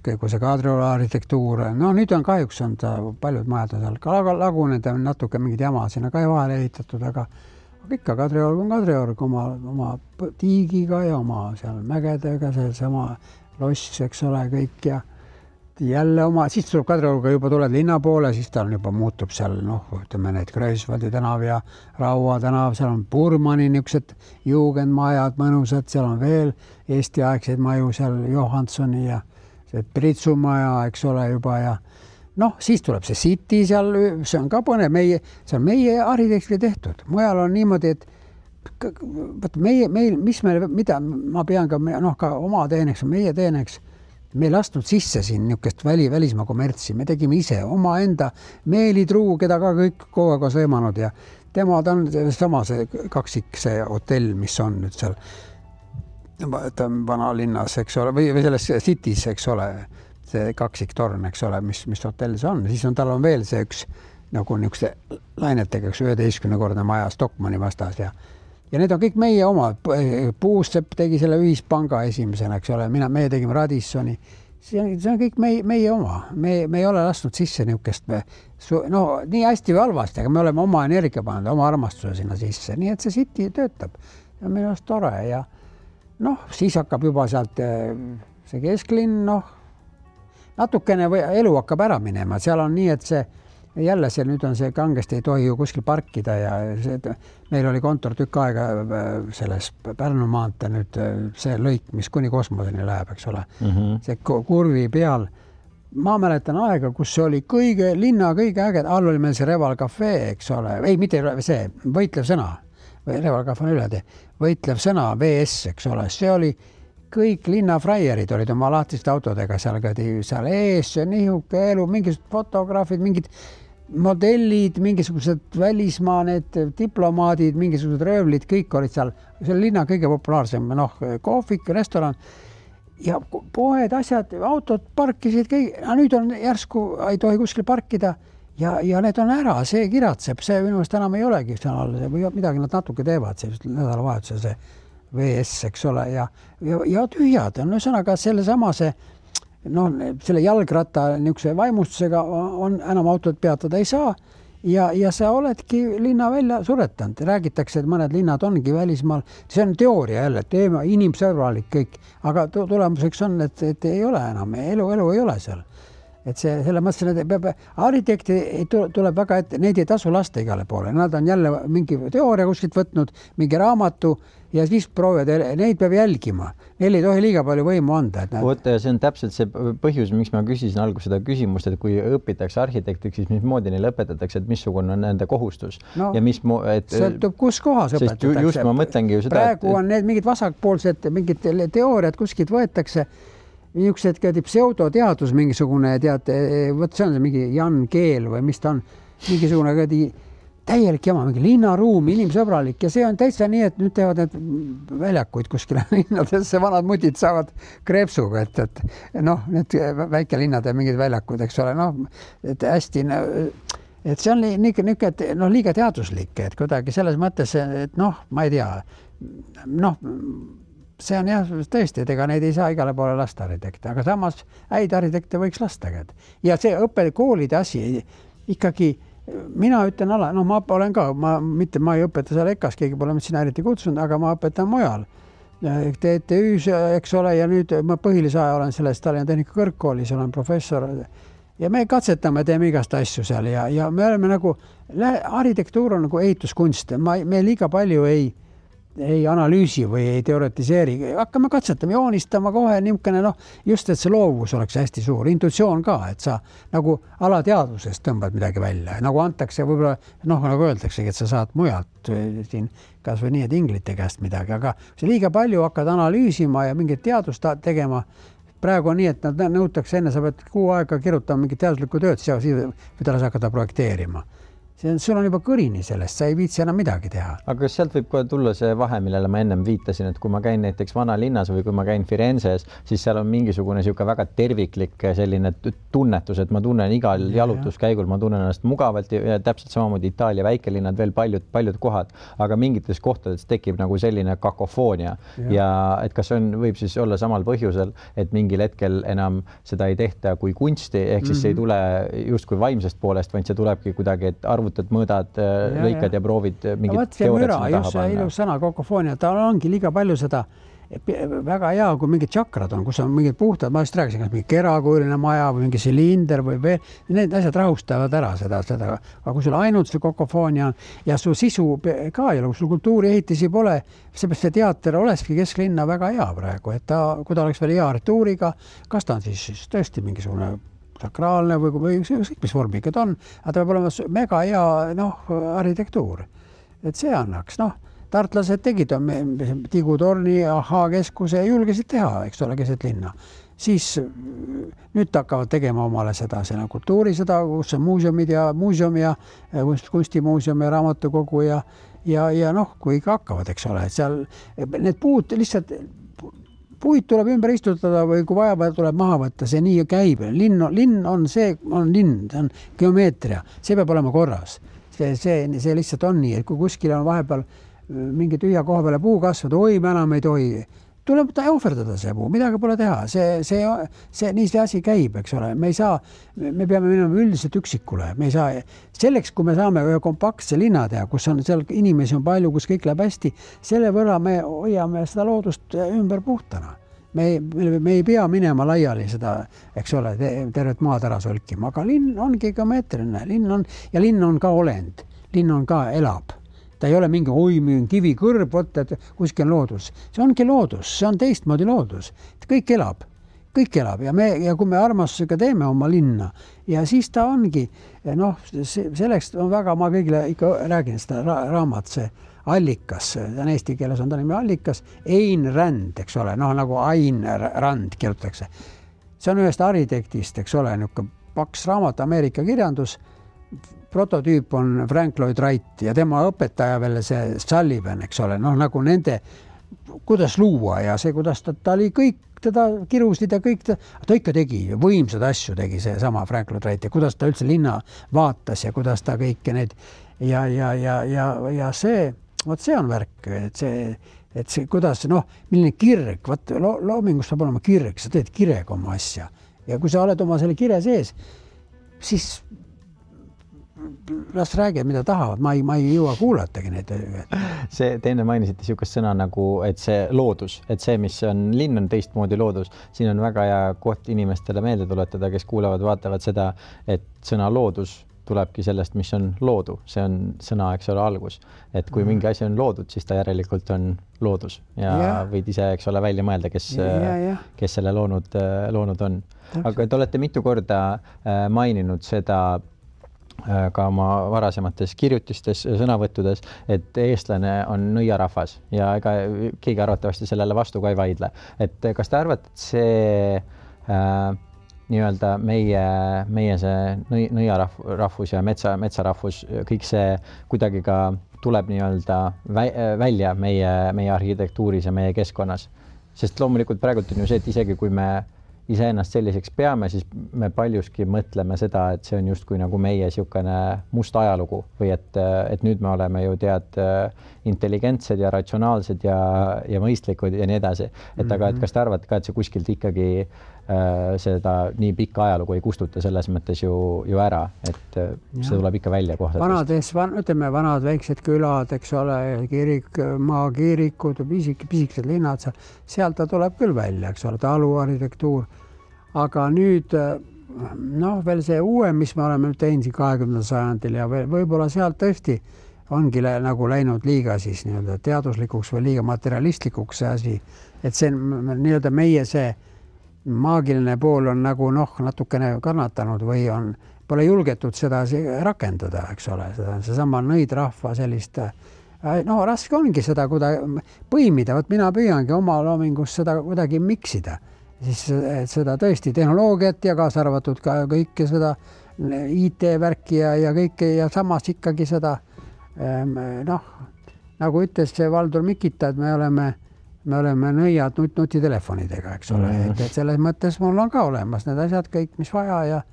kui see Kadrioru arhitektuur, nüüd on kahjuks on ta paljud majad on seal ka lagunenud ja natuke mingid jama sinna ka vahele ehitatud, aga ikka Kadriorg on Kadriorg oma tiigiga ja oma seal mägedega, seesama loss, eks ole, kõik ja jälle siis tuleb Kadriorga juba tuled linna poole, siis ta juba muutub seal, ütleme need Kreuzvaldi tänav ja Raua tänav, seal on Burmani niisugused juugendmajad mõnusad, seal on veel Eesti-aegseid maju, seal Johanssoni ja see Pritsumaja, eks ole juba ja siis tuleb see City seal, see on ka põnev, see on meie arhitekti tehtud. Mujal on niimoodi, et mida ma pean ka, ka oma teeneks, meie teeneks, me ei lastnud sisse siin niisugust välismaa kommertsi, me tegime ise oma enda Meelitruu, keda ka kõik kogu aeg on sõimanud ja tema ta on sama see kaksik, see hotell, mis on nüüd seal vanalinnas, eks ole, või selles City's, eks ole, see kaksiktorn, eks ole, mis hotell see on. Siis tal on veel see üks nagu niisuguste lainetega 11-kordne maja Stockmanni vastas ja need on kõik meie oma. Puusepp tegi selle ühispanga esimesena, eks ole, meie tegime Radissoni. See on kõik meie oma. Me ei ole lasknud sisse niisugust, nii hästi või halvasti, aga me oleme oma energia pannud, oma armastuse sinna sisse. Nii et see City töötab ja minu arust tore ja siis hakkab juba sealt see kesklinn, natukene elu hakkab ära minema. Seal on nii, et jälle nüüd on see kangesti ei tohi ju kuskil parkida ja meil oli kontor tükk aega selles Pärnu maantee nüüd see lõik, mis kuni kosmoseni läheb, eks ole. See kurvi peal. Ma mäletan aega, kus see oli linna kõige äged. All oli meil see Reval Cafe, eks ole. Ei, mitte see, võitlev sõna. Reval Cafe on üle võitlev sõna, VS, eks ole. See oli kõik linnafraierid olid oma lahtiste autodega seal ees, nihuke elu, mingisugused fotograafid, mingid modellid, mingisugused välismaa, need diplomaadid, mingisugused röövlid, kõik olid seal. See oli linna kõige populaarsem, kohvik, restoran ja poed, asjad, autod parkisid kõik. Nüüd on järsku, ei tohi kuskil parkida ja need on ära, see kiratseb, see minu meelest enam ei olegi või midagi nad natuke teevad, see nädalavahetusel see VS, eks ole, ja tühjad on ühesõnaga selle jalgratta niisuguse vaimustusega on enam autod peatada ei saa ja sa oledki linna välja suretanud. Räägitakse, et mõned linnad ongi välismaal. See on teooria jälle, teema inimsõbralik kõik, aga tulemuseks on, et ei ole enam, elu ei ole seal. Et selle mõttes, et arhitekti tuleb väga ette, neid ei tasu lasta igale poole. Nad on jälle mingi teooria kuskilt võtnud, mingi raamatu ja siis proovivad, neid peab jälgima. Neil ei tohi liiga palju võimu anda. See on täpselt see põhjus, miks ma küsisin alguses seda küsimust, et kui õpitakse arhitektiks, siis mismoodi neile õpetatakse, et missugune on nende kohustus. Sõltub, kus kohas õpetatakse. Just ma mõtlengi ju seda. Praegu on need mingid vasakpoolsed, mingid teooriad kuskilt võetakse. Niisugused pseudoteadus mingisugune, see on mingi Jan Keel või mis ta on, mingisugune täielik jama, mingi linnaruum, inimsõbralik ja see on täitsa nii, et nüüd teevad need väljakuid kuskile linnadesse, vanad mutid saavad kreepsuga, et need väikelinnade mingid väljakud, eks ole, et hästi, et see on liiga teaduslik, et kuidagi selles mõttes, et ma ei tea, see on jah, tõesti, et ega neid ei saa igale poole lasta arhitekte, aga samas häid arhitekte võiks lasta. Ja see õppekoolide asi ikkagi, mina ütlen ma olen ka, ma ei õpeta seal EKAs, keegi pole sinna eriti kutsunud, aga ma õpetan mujal. TTÜ-s, eks ole, ja nüüd ma põhilise aja olen selles Tallinna Tehnika Kõrgkoolis, olen professor ja me katsetame, teeme igast asju seal ja me oleme arhitektuur on nagu ehituskunst, me liiga palju ei analüüsi või ei teoretiseeri, hakkame katsetama, joonistama kohe niisugune, just, et see loovus oleks hästi suur, intuitsioon ka, et sa nagu alateadvusest tõmbad midagi välja, nagu antakse võib-olla, nagu öeldaksegi, et sa saad mujalt siin kas või nii, et inglite käest midagi, aga see liiga palju hakkad analüüsima ja mingit teadust tegema. Praegu on nii, et nad nõutakse enne, sa pead kuu aega kirjutama mingit teaduslikku tööd, siis võid hakata projekteerima. Sul on juba kõrini sellest, sa ei viitsi enam midagi teha. Aga kas sealt võib kohe tulla see vahe, millele ma ennem viitasin, et kui ma käin näiteks vanalinnas või kui ma käin Firenzes, siis seal on mingisugune väga terviklik selline tunnetus, et ma tunnen igal jalutuskäigul, ma tunnen ennast mugavalt ja täpselt samamoodi Itaalia väikelinnad, veel paljud kohad, aga mingites kohtades tekib nagu selline kakofoonia ja et kas võib siis olla samal põhjusel, et mingil hetkel enam seda ei tehta kui kunsti, ehk siis see ei tule justkui vaimsest poolest, vaid see tulebki kuidagi, et mõõdad, lõikad ja proovid mingit teooriat sinna taha panna. Ilus sõna, kakofoonia, ta ongi liiga palju seda väga hea, kui mingid tšakrad on, kus on mingid puhtad, ma just rääkisin, kas mingi kerakujuline maja või mingi silinder või veel, need asjad rahustavad ära seda, aga kui sul ainult see kakofoonia on ja su sisu ka ei ole, kui sul kultuuriehitisi pole, seepärast see teater olekski kesklinna väga hea praegu, et kui ta oleks veel hea arhitektuuriga, kas ta on siis tõesti mingisugune sakraalne või mis vormi ikka ta on, aga ta peab olema mega hea arhitektuur. Et see annaks, tartlased tegid Tigutorni Ahhaa-keskuse ja julgesid teha, eks ole, keset linna. Siis nüüd hakkavad tegema omale seda kultuuri, kus on muuseum ja kunstimuuseum ja raamatukogu ja noh, kui ikka hakkavad, eks ole, et seal need puud lihtsalt puid tuleb ümber istutada või kui vaja tuleb maha võtta, see nii käib. Linn on linn, see on geomeetria, see peab olema korras. See lihtsalt on nii, et kui kuskil on vahepeal mingi tühja koha peale puu kasvada, oi, me enam ei tohi. Tuleb ohverdada see puu, midagi pole teha. Nii see asi käib, eks ole. Me peame minema üldiselt üksikule. Me ei saa, selleks, kui me saame ühe kompaktse linna teha, kus on seal inimesi on palju, kus kõik läheb hästi, selle võrra me hoiame seda loodust ümber puhtana. Me ei pea minema laiali seda, eks ole, tervet maad ära solkima, aga linn ongi geomeetriline. Linn on ka olend. Linn on ka elab. Ta ei ole mingi kivi kõrb, et kuskil on loodus. See ongi loodus, see on teistmoodi loodus. Kõik elab ja kui me armastusega teeme oma linna ja siis ta ongi, selleks on väga, ma kõigile ikka räägin seda raamat, see Allikas, eesti keeles on ta nimi Allikas, Ain Rand, eks ole, nagu Ain Rand kirjutatakse. See on ühest arhitektist, eks ole, paks raamat, Ameerika kirjandus, prototüüp on Frank Lloyd Wright ja tema õpetaja veel see Sullivan, eks ole, nagu nende, kuidas luua ja see, kuidas ta oli kõik, teda kirusid ja kõik, ta ikka tegi, võimsad asju tegi see sama Frank Lloyd Wright ja kuidas ta üldse linna vaatas ja kuidas ta kõike need ja see, vot see on värk, et see kuidas, milline kirg, loomingus peab olema kirg, sa teed kirega oma asja ja kui sa oled oma selle kire sees, siis las räägid, mida tahavad, ma ei jõua kuulatagi neid. See teine mainisite niisugust sõna nagu, et see loodus, et see, mis on linn, on teistmoodi loodus. Siin on väga hea koht inimestele meelde tuletada, kes kuulavad, vaatavad seda, et sõna loodus tulebki sellest, mis on loodu. See on sõna, eks ole, algus. Et kui mingi asi on loodud, siis ta järelikult on loodus ja võid ise, eks ole, välja mõelda, kes selle loonud on. Aga te olete mitu korda maininud seda ka oma varasemates kirjutistes, sõnavõttudes, et eestlane on nõiarahvas ja ega keegi arvatavasti sellele vastu ka ei vaidle. Et kas te arvate, et see nii-öelda meie see nõiarahvus ja metsarahvus, kõik see kuidagi ka tuleb nii-öelda välja meie arhitektuuris ja meie keskkonnas? Sest loomulikult praegult on ju see, et isegi kui me iseennast selliseks peame, siis me paljuski mõtleme seda, et see on justkui nagu meie niisugune must ajalugu või et nüüd me oleme ju intelligentsed ja ratsionaalsed ja mõistlikud ja nii edasi. Aga kas te arvate ka, et see kuskilt ikkagi seda nii pikka ajalugu ei kustuta selles mõttes ju ära, et see tuleb ikka välja kohtadest? Vanad väiksed külad, eks ole, maakiirikud, pisikesed linnad, sealt ta tuleb küll välja, eks ole, taluarhitektuur. Aga nüüd, veel see uue, mis me oleme teinud 20. sajandil ja võib-olla sealt tõesti ongi nagu läinud liiga siis nii-öelda teaduslikuks või liiga materialistlikuks see asi, et see nii-öelda meie see maagiline pool on nagu natukene kannatanud või pole julgetud seda rakendada, eks ole, seesama nõidrahva sellist, raske ongi seda põimida, mina püüangi oma loomingus seda kuidagi miksida, siis seda tõesti tehnoloogiat ja kaasa arvatud ka kõike seda IT-värki ja kõike ja samas ikkagi seda, nagu ütles see Valdur Mikita, et me oleme nõiad nutitelefonidega, eks ole, et selles mõttes mul on ka olemas need asjad kõik, mis vaja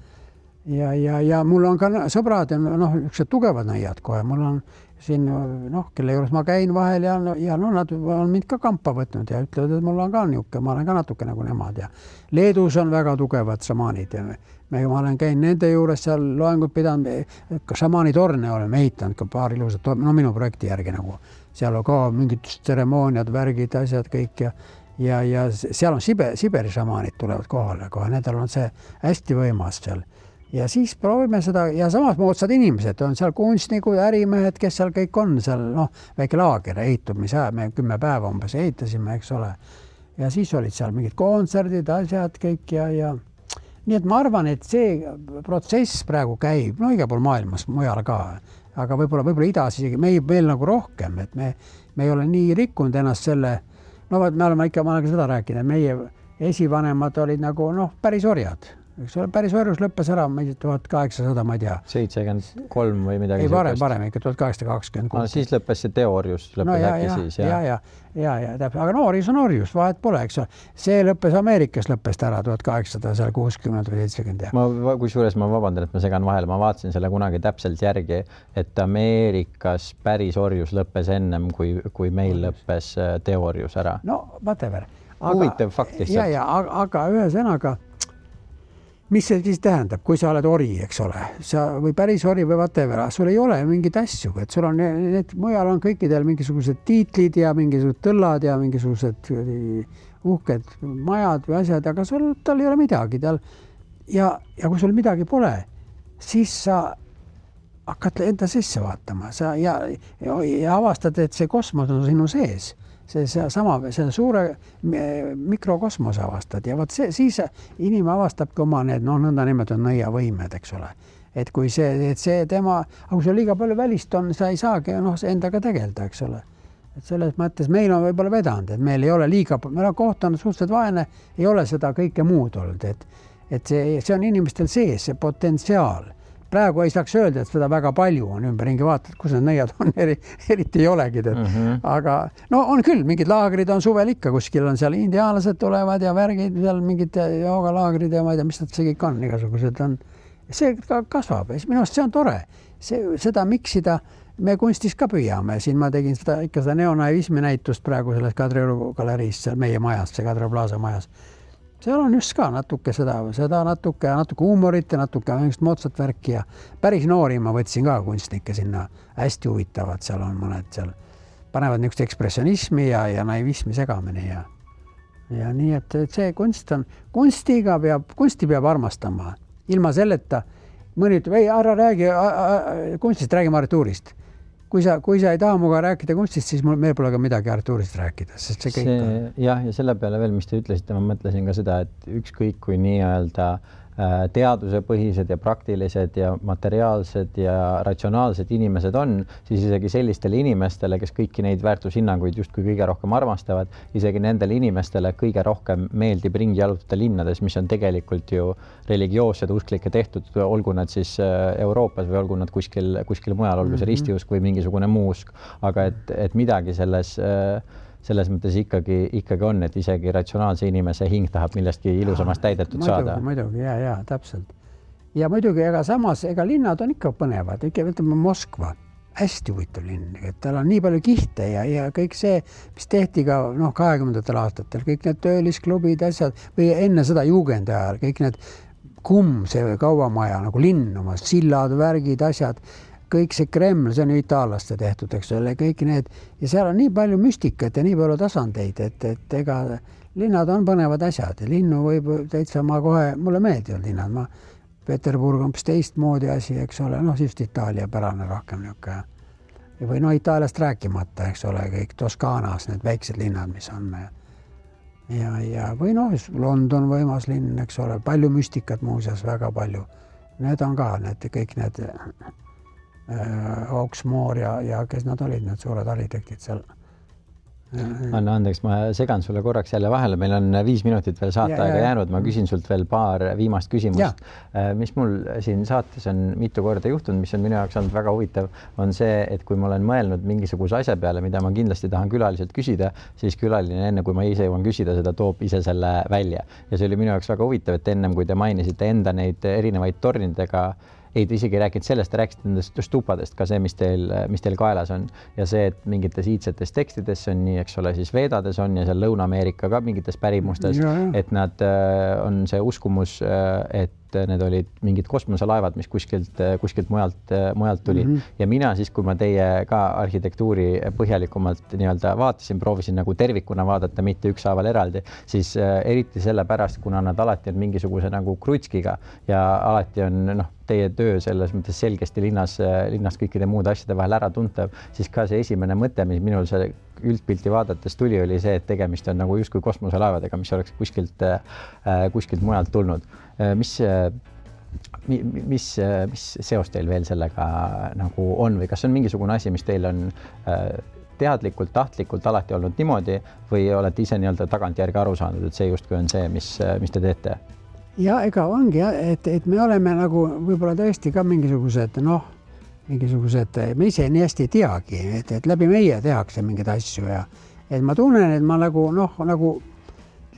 ja mul on ka sõbrad ja niisugused tugevad nõiad kohe, mul on siin, kelle juures ma käin vahel ja nad on mind ka kampa võtnud ja ütlevad, et mul on ka niisugune, ma olen ka natuke nagu nemad ja Leedus on väga tugevad šamaanid ja ma olen käinud nende juures seal loengut pidanud, ka šamaanitorne oleme ehitanud ka paar ilusat, minu projekti järgi nagu, seal on ka mingid tseremooniad, värgid, asjad kõik ja seal on Siberi šamaanid tulevad kohale, nendel on see hästi võimas seal. Ja siis proovime seda ja samas moodsad inimesed, on seal kunstnikud, ärimehed, kes seal kõik on, seal väike laager ehitumise, me 10 päeva umbes ehitasime, eks ole. Ja siis olid seal mingid kontserdid, asjad kõik ja nii et ma arvan, et see protsess praegu käib, igal pool maailmas, mujal ka. aga võib-olla idas isegi meil nagu rohkem, et me ei ole nii rikkunud ennast selle, no me oleme ikka, ma olen seda rääkinud, meie esivanemad olid nagu päris orjad. Eks ole, päris orjus lõppes ära 1800, ma ei tea. 73 või midagi. Ei, varem ikka 1826. Siis lõppes see teoorjus, lõppes äkki siis. Ja, täpselt. Aga orjus on orjus, vahet pole, eks ole. See lõppes Ameerikas lõppes ära 1860 või 70. Kusjuures ma vabandan, et ma segan vahele. Ma vaatasin selle kunagi täpselt järgi, et Ameerikas päris orjus lõppes ennem, kui meil lõppes teoorjus ära. No, whatever. Huvitav fakt lihtsalt. Aga ühe sõnaga, mis see siis tähendab, kui sa oled ori, eks ole, või päris ori või whatever, sul ei ole mingid asju, et sul on need mujal on kõikidel mingisugused tiitlid ja mingisugused tõllad ja mingisugused uhked majad või asjad, aga tal ei ole midagi tal. Ja kui sul midagi pole, siis sa hakkad enda sisse vaatama ja avastad, et see kosmos on sinu sees. See suure mikrokosmose avastad ja siis inimene avastabki oma need nõnda nimetatud nõiavõimed, eks ole. Et kui see tema, aga kui sul liiga palju välist on, sa ei saagi endaga tegelda, eks ole. Et selles mõttes meil on võib-olla vedanud, et meil ei ole meil on koht on suhteliselt vaene, ei ole seda kõike muud olnud, et see on inimestel sees, see potentsiaal. Praegu ei saaks öelda, et seda väga palju on ümberringi vaatad, kus need nõiad on, eriti ei olegi. Aga on küll, mingid laagrid on suvel ikka, kuskil on seal indiaanlased tulevad ja värgid, seal mingid joogalaagrid ja ma ei tea, mis nad see kõik on, igasugused on. See kasvab, minu arust see on tore. Seda miksida me kunstis ka püüame. Siin ma tegin seda neonaivismi näitust praegu selles Kadrioru galeriis, seal meie majas, see Kadrioru Plaza majas. Seal on just ka natuke seda natuke huumorit ja natuke moodsat värki ja päris noori ma võtsin ka kunstnikke sinna hästi huvitavad. Seal on mõned seal panevad niisugust ekspressionismi ja naivismi segamine ja nii, et see kunsti peab armastama. Ilma selleta mõni ütleb, ei, ära räägi kunstist, räägime arhitektuurist. Kui sa ei taha muga rääkida kunstist, siis meil pole ka midagi arhitektuurist rääkida, sest see kõik on. Ja selle peale veel, mis te ütlesite, ma mõtlesin ka seda, et ükskõik kui nii-öelda teadusepõhised ja praktilised ja materiaalsed ja ratsionaalsed inimesed on, siis isegi sellistele inimestele, kes kõiki neid väärtushinnanguid justkui kõige rohkem armastavad, isegi nendele inimestele kõige rohkem meeldib ringi jalutada linnades, mis on tegelikult ju religioossed usklikke tehtud, olgu nad siis Euroopas või olgu nad kuskil mujal, olgu see ristiusk või mingisugune muu usk, aga et midagi selles mõttes ikkagi on, et isegi ratsionaalse inimese hing tahab millestki ilusamast täidetud saada. Muidugi, ja, täpselt. Ja muidugi, ega samas, linnad on ikka põnevad, ütleme Moskva, hästi huvitav linn, et tal on nii palju kihte ja kõik see, mis tehti ka 20. aastatel, kõik need töölisklubid, asjad, või enne seda juugendi ajal, kõik need see kaubamaja, nagu linn, oma sillad, värgid, asjad, kõik see Kreml, see on ju itaallaste tehtud, eks ole, kõik need, ja seal on nii palju müstikat ja nii palju tasandeid, et ega linnad on põnevad asjad ja linnu võib täitsa mulle meeldivad linnad, Peterburg on teistmoodi asi, eks ole, siis Itaalia pärane rohkem niuke. Või Itaaliast rääkimata, eks ole, kõik Toskaanas, need väiksed linnad, mis on. Ja või London võimas linn, eks ole, palju müstikat muuseas, väga palju. Need on ka kõik need Hawksmoor ja kes nad olid, need suured arhitektid seal. Anna andeks, ma segan sulle korraks jälle vahele, meil on 5 minutit veel saateaega jäänud, ma küsin sult veel paar viimast küsimust. Mis mul siin saates on mitu korda juhtunud, mis on minu jaoks olnud väga huvitav, on see, et kui ma olen mõelnud mingisuguse asja peale, mida ma kindlasti tahan külaliselt küsida, siis külaline enne, kui ma ise jõuan küsida, seda toob ise selle välja. Ja see oli minu jaoks väga huvitav, et ennem, kui te mainisite enda neid erinevaid tornidega, ei, te isegi rääkinud sellest, te rääkisite nendest stupadest ka see, mis teil kaelas on. Ja see, et mingites iidsetes tekstides on nii, eks ole, siis Veedades on ja seal Lõuna-Ameerika ka mingites pärimustes, et nad on see uskumus, et need olid mingid kosmoselaevad, mis kuskilt mujalt tuli. Ja mina siis, kui ma teie ka arhitektuuri põhjalikumalt nii-öelda vaatasin, proovisin nagu tervikuna vaadata, mitte ükshaaval eraldi, siis eriti selle pärast, kuna nad alati on mingisuguse nagu krutskiga ja alati on teie töö selles mõttes selgesti linnas kõikide muude asjade vahel ära tuntav, siis ka see esimene mõte, mis minul see üldpilti vaadates tuli, oli see, et tegemist on nagu justkui kosmoselaevadega, mis oleks kuskilt mujalt tulnud. mis seos teil veel sellega nagu on või kas on mingisugune asi, mis teil on teadlikult, tahtlikult alati olnud niimoodi või olete ise nii-öelda tagantjärgi aru saanud, et see justkui on see, mis te teete? Ja ega ongi, et me oleme nagu võib-olla tõesti ka mingisugused, me ise nii hästi ei teagi, et läbi meie tehakse mingeid asju ja et ma tunnen, et ma nagu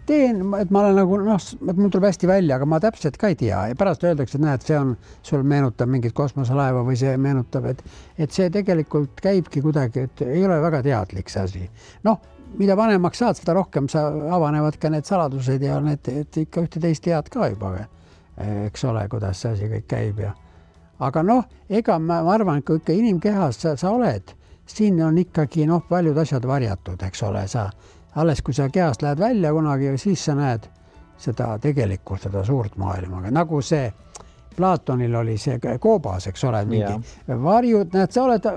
teen, et ma olen nagu et mul tuleb hästi välja, aga ma täpselt ka ei tea ja pärast öeldakse, et näed, see on, sul meenutab mingit kosmoselaeva või see meenutab, et see tegelikult käibki kuidagi, et ei ole väga teadlik see asi. Mida vanemaks saad, seda rohkem sa avanevad ka need saladused ja need, et ikka ühte-teist tead ka juba, eks ole, kuidas see asi kõik käib ja aga ega ma arvan, kui ikka inimkehas sa oled, siin on ikkagi paljud asjad varjatud, eks ole, alles kui sa kehast lähed välja kunagi, siis sa näed seda tegelikult, seda suurt maailma. Nagu see Platonil oli see koobas, eks ole, mingi varjud,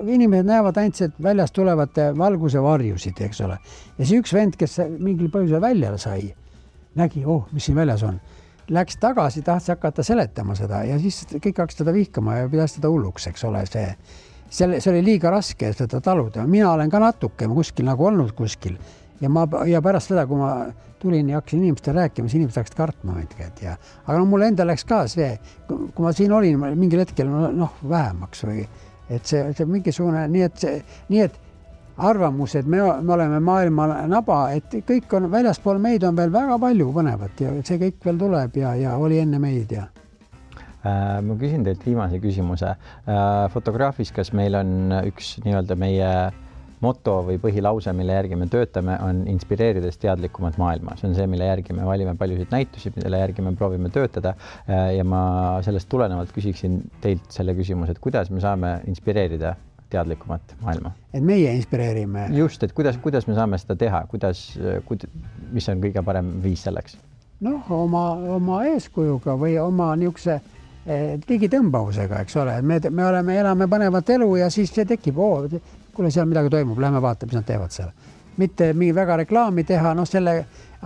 inimesed näevad ainult, et väljast tulevad valguse varjusid, eks ole. Ja see üks vend, kes mingil põhjusel välja sai, nägi, mis siin väljas on. Läks tagasi, tahtis hakata seletama seda ja siis kõik hakkas teda vihkama ja pidas teda hulluks, eks ole, see oli liiga raske seda taluda. Mina olen ka natuke kuskil nagu olnud kuskil ja pärast seda, kui ma tulin ja hakkasin inimestele rääkima, siis inimesed hakkasid kartma mõndked aga mulle enda läks ka see, kui ma siin olin mingil hetkel vähemaks või et see mingisugune, nii et arvamus, et me oleme maailma naba, et kõik on väljaspool meid on veel väga palju põnevat ja see kõik veel tuleb ja oli enne meid ja ma küsin teilt viimase küsimuse. Fotograafis, kas meil on üks nii-öelda meie moto või põhilause, mille järgi me töötame, on inspireerides teadlikumat maailma. See on see, mille järgi me valime paljusid näitusi, mille järgi me proovime töötada ja ma sellest tulenevalt küsiksin teilt selle küsimuse, et kuidas me saame inspireerida teadlikumat maailma? Et meie inspireerime. Just, et kuidas me saame seda teha, mis on kõige parem viis selleks? Oma eeskujuga või oma niisuguse digitõmbavusega, eks ole. Me elame põnevat elu ja siis see tekib, kuule, seal midagi toimub, lähme vaata, mis nad teevad seal. Mitte mingi väga reklaami teha,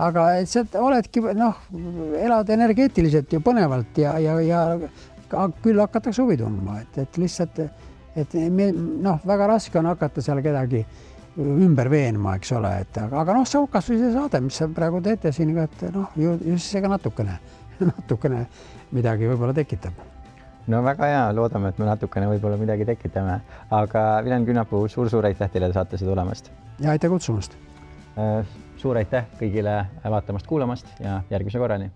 aga sa oledki, elad energeetiliselt ju põnevalt ja küll hakatakse huvi tundma, et lihtsalt, väga raske on hakata seal kedagi ümber veenma, eks ole, aga see on kas või see saade, mis sa praegu teete siin, et just see ka natukene midagi võib-olla tekitab. Väga hea, loodame, et me natukene võib-olla midagi tekitame, aga Vilen Künnapuu, suur aitäh teile saatesse tulemast. Ja aitäh kutsumast. Suur aitäh kõigile vaatamast, kuulamast ja järgmise korrani.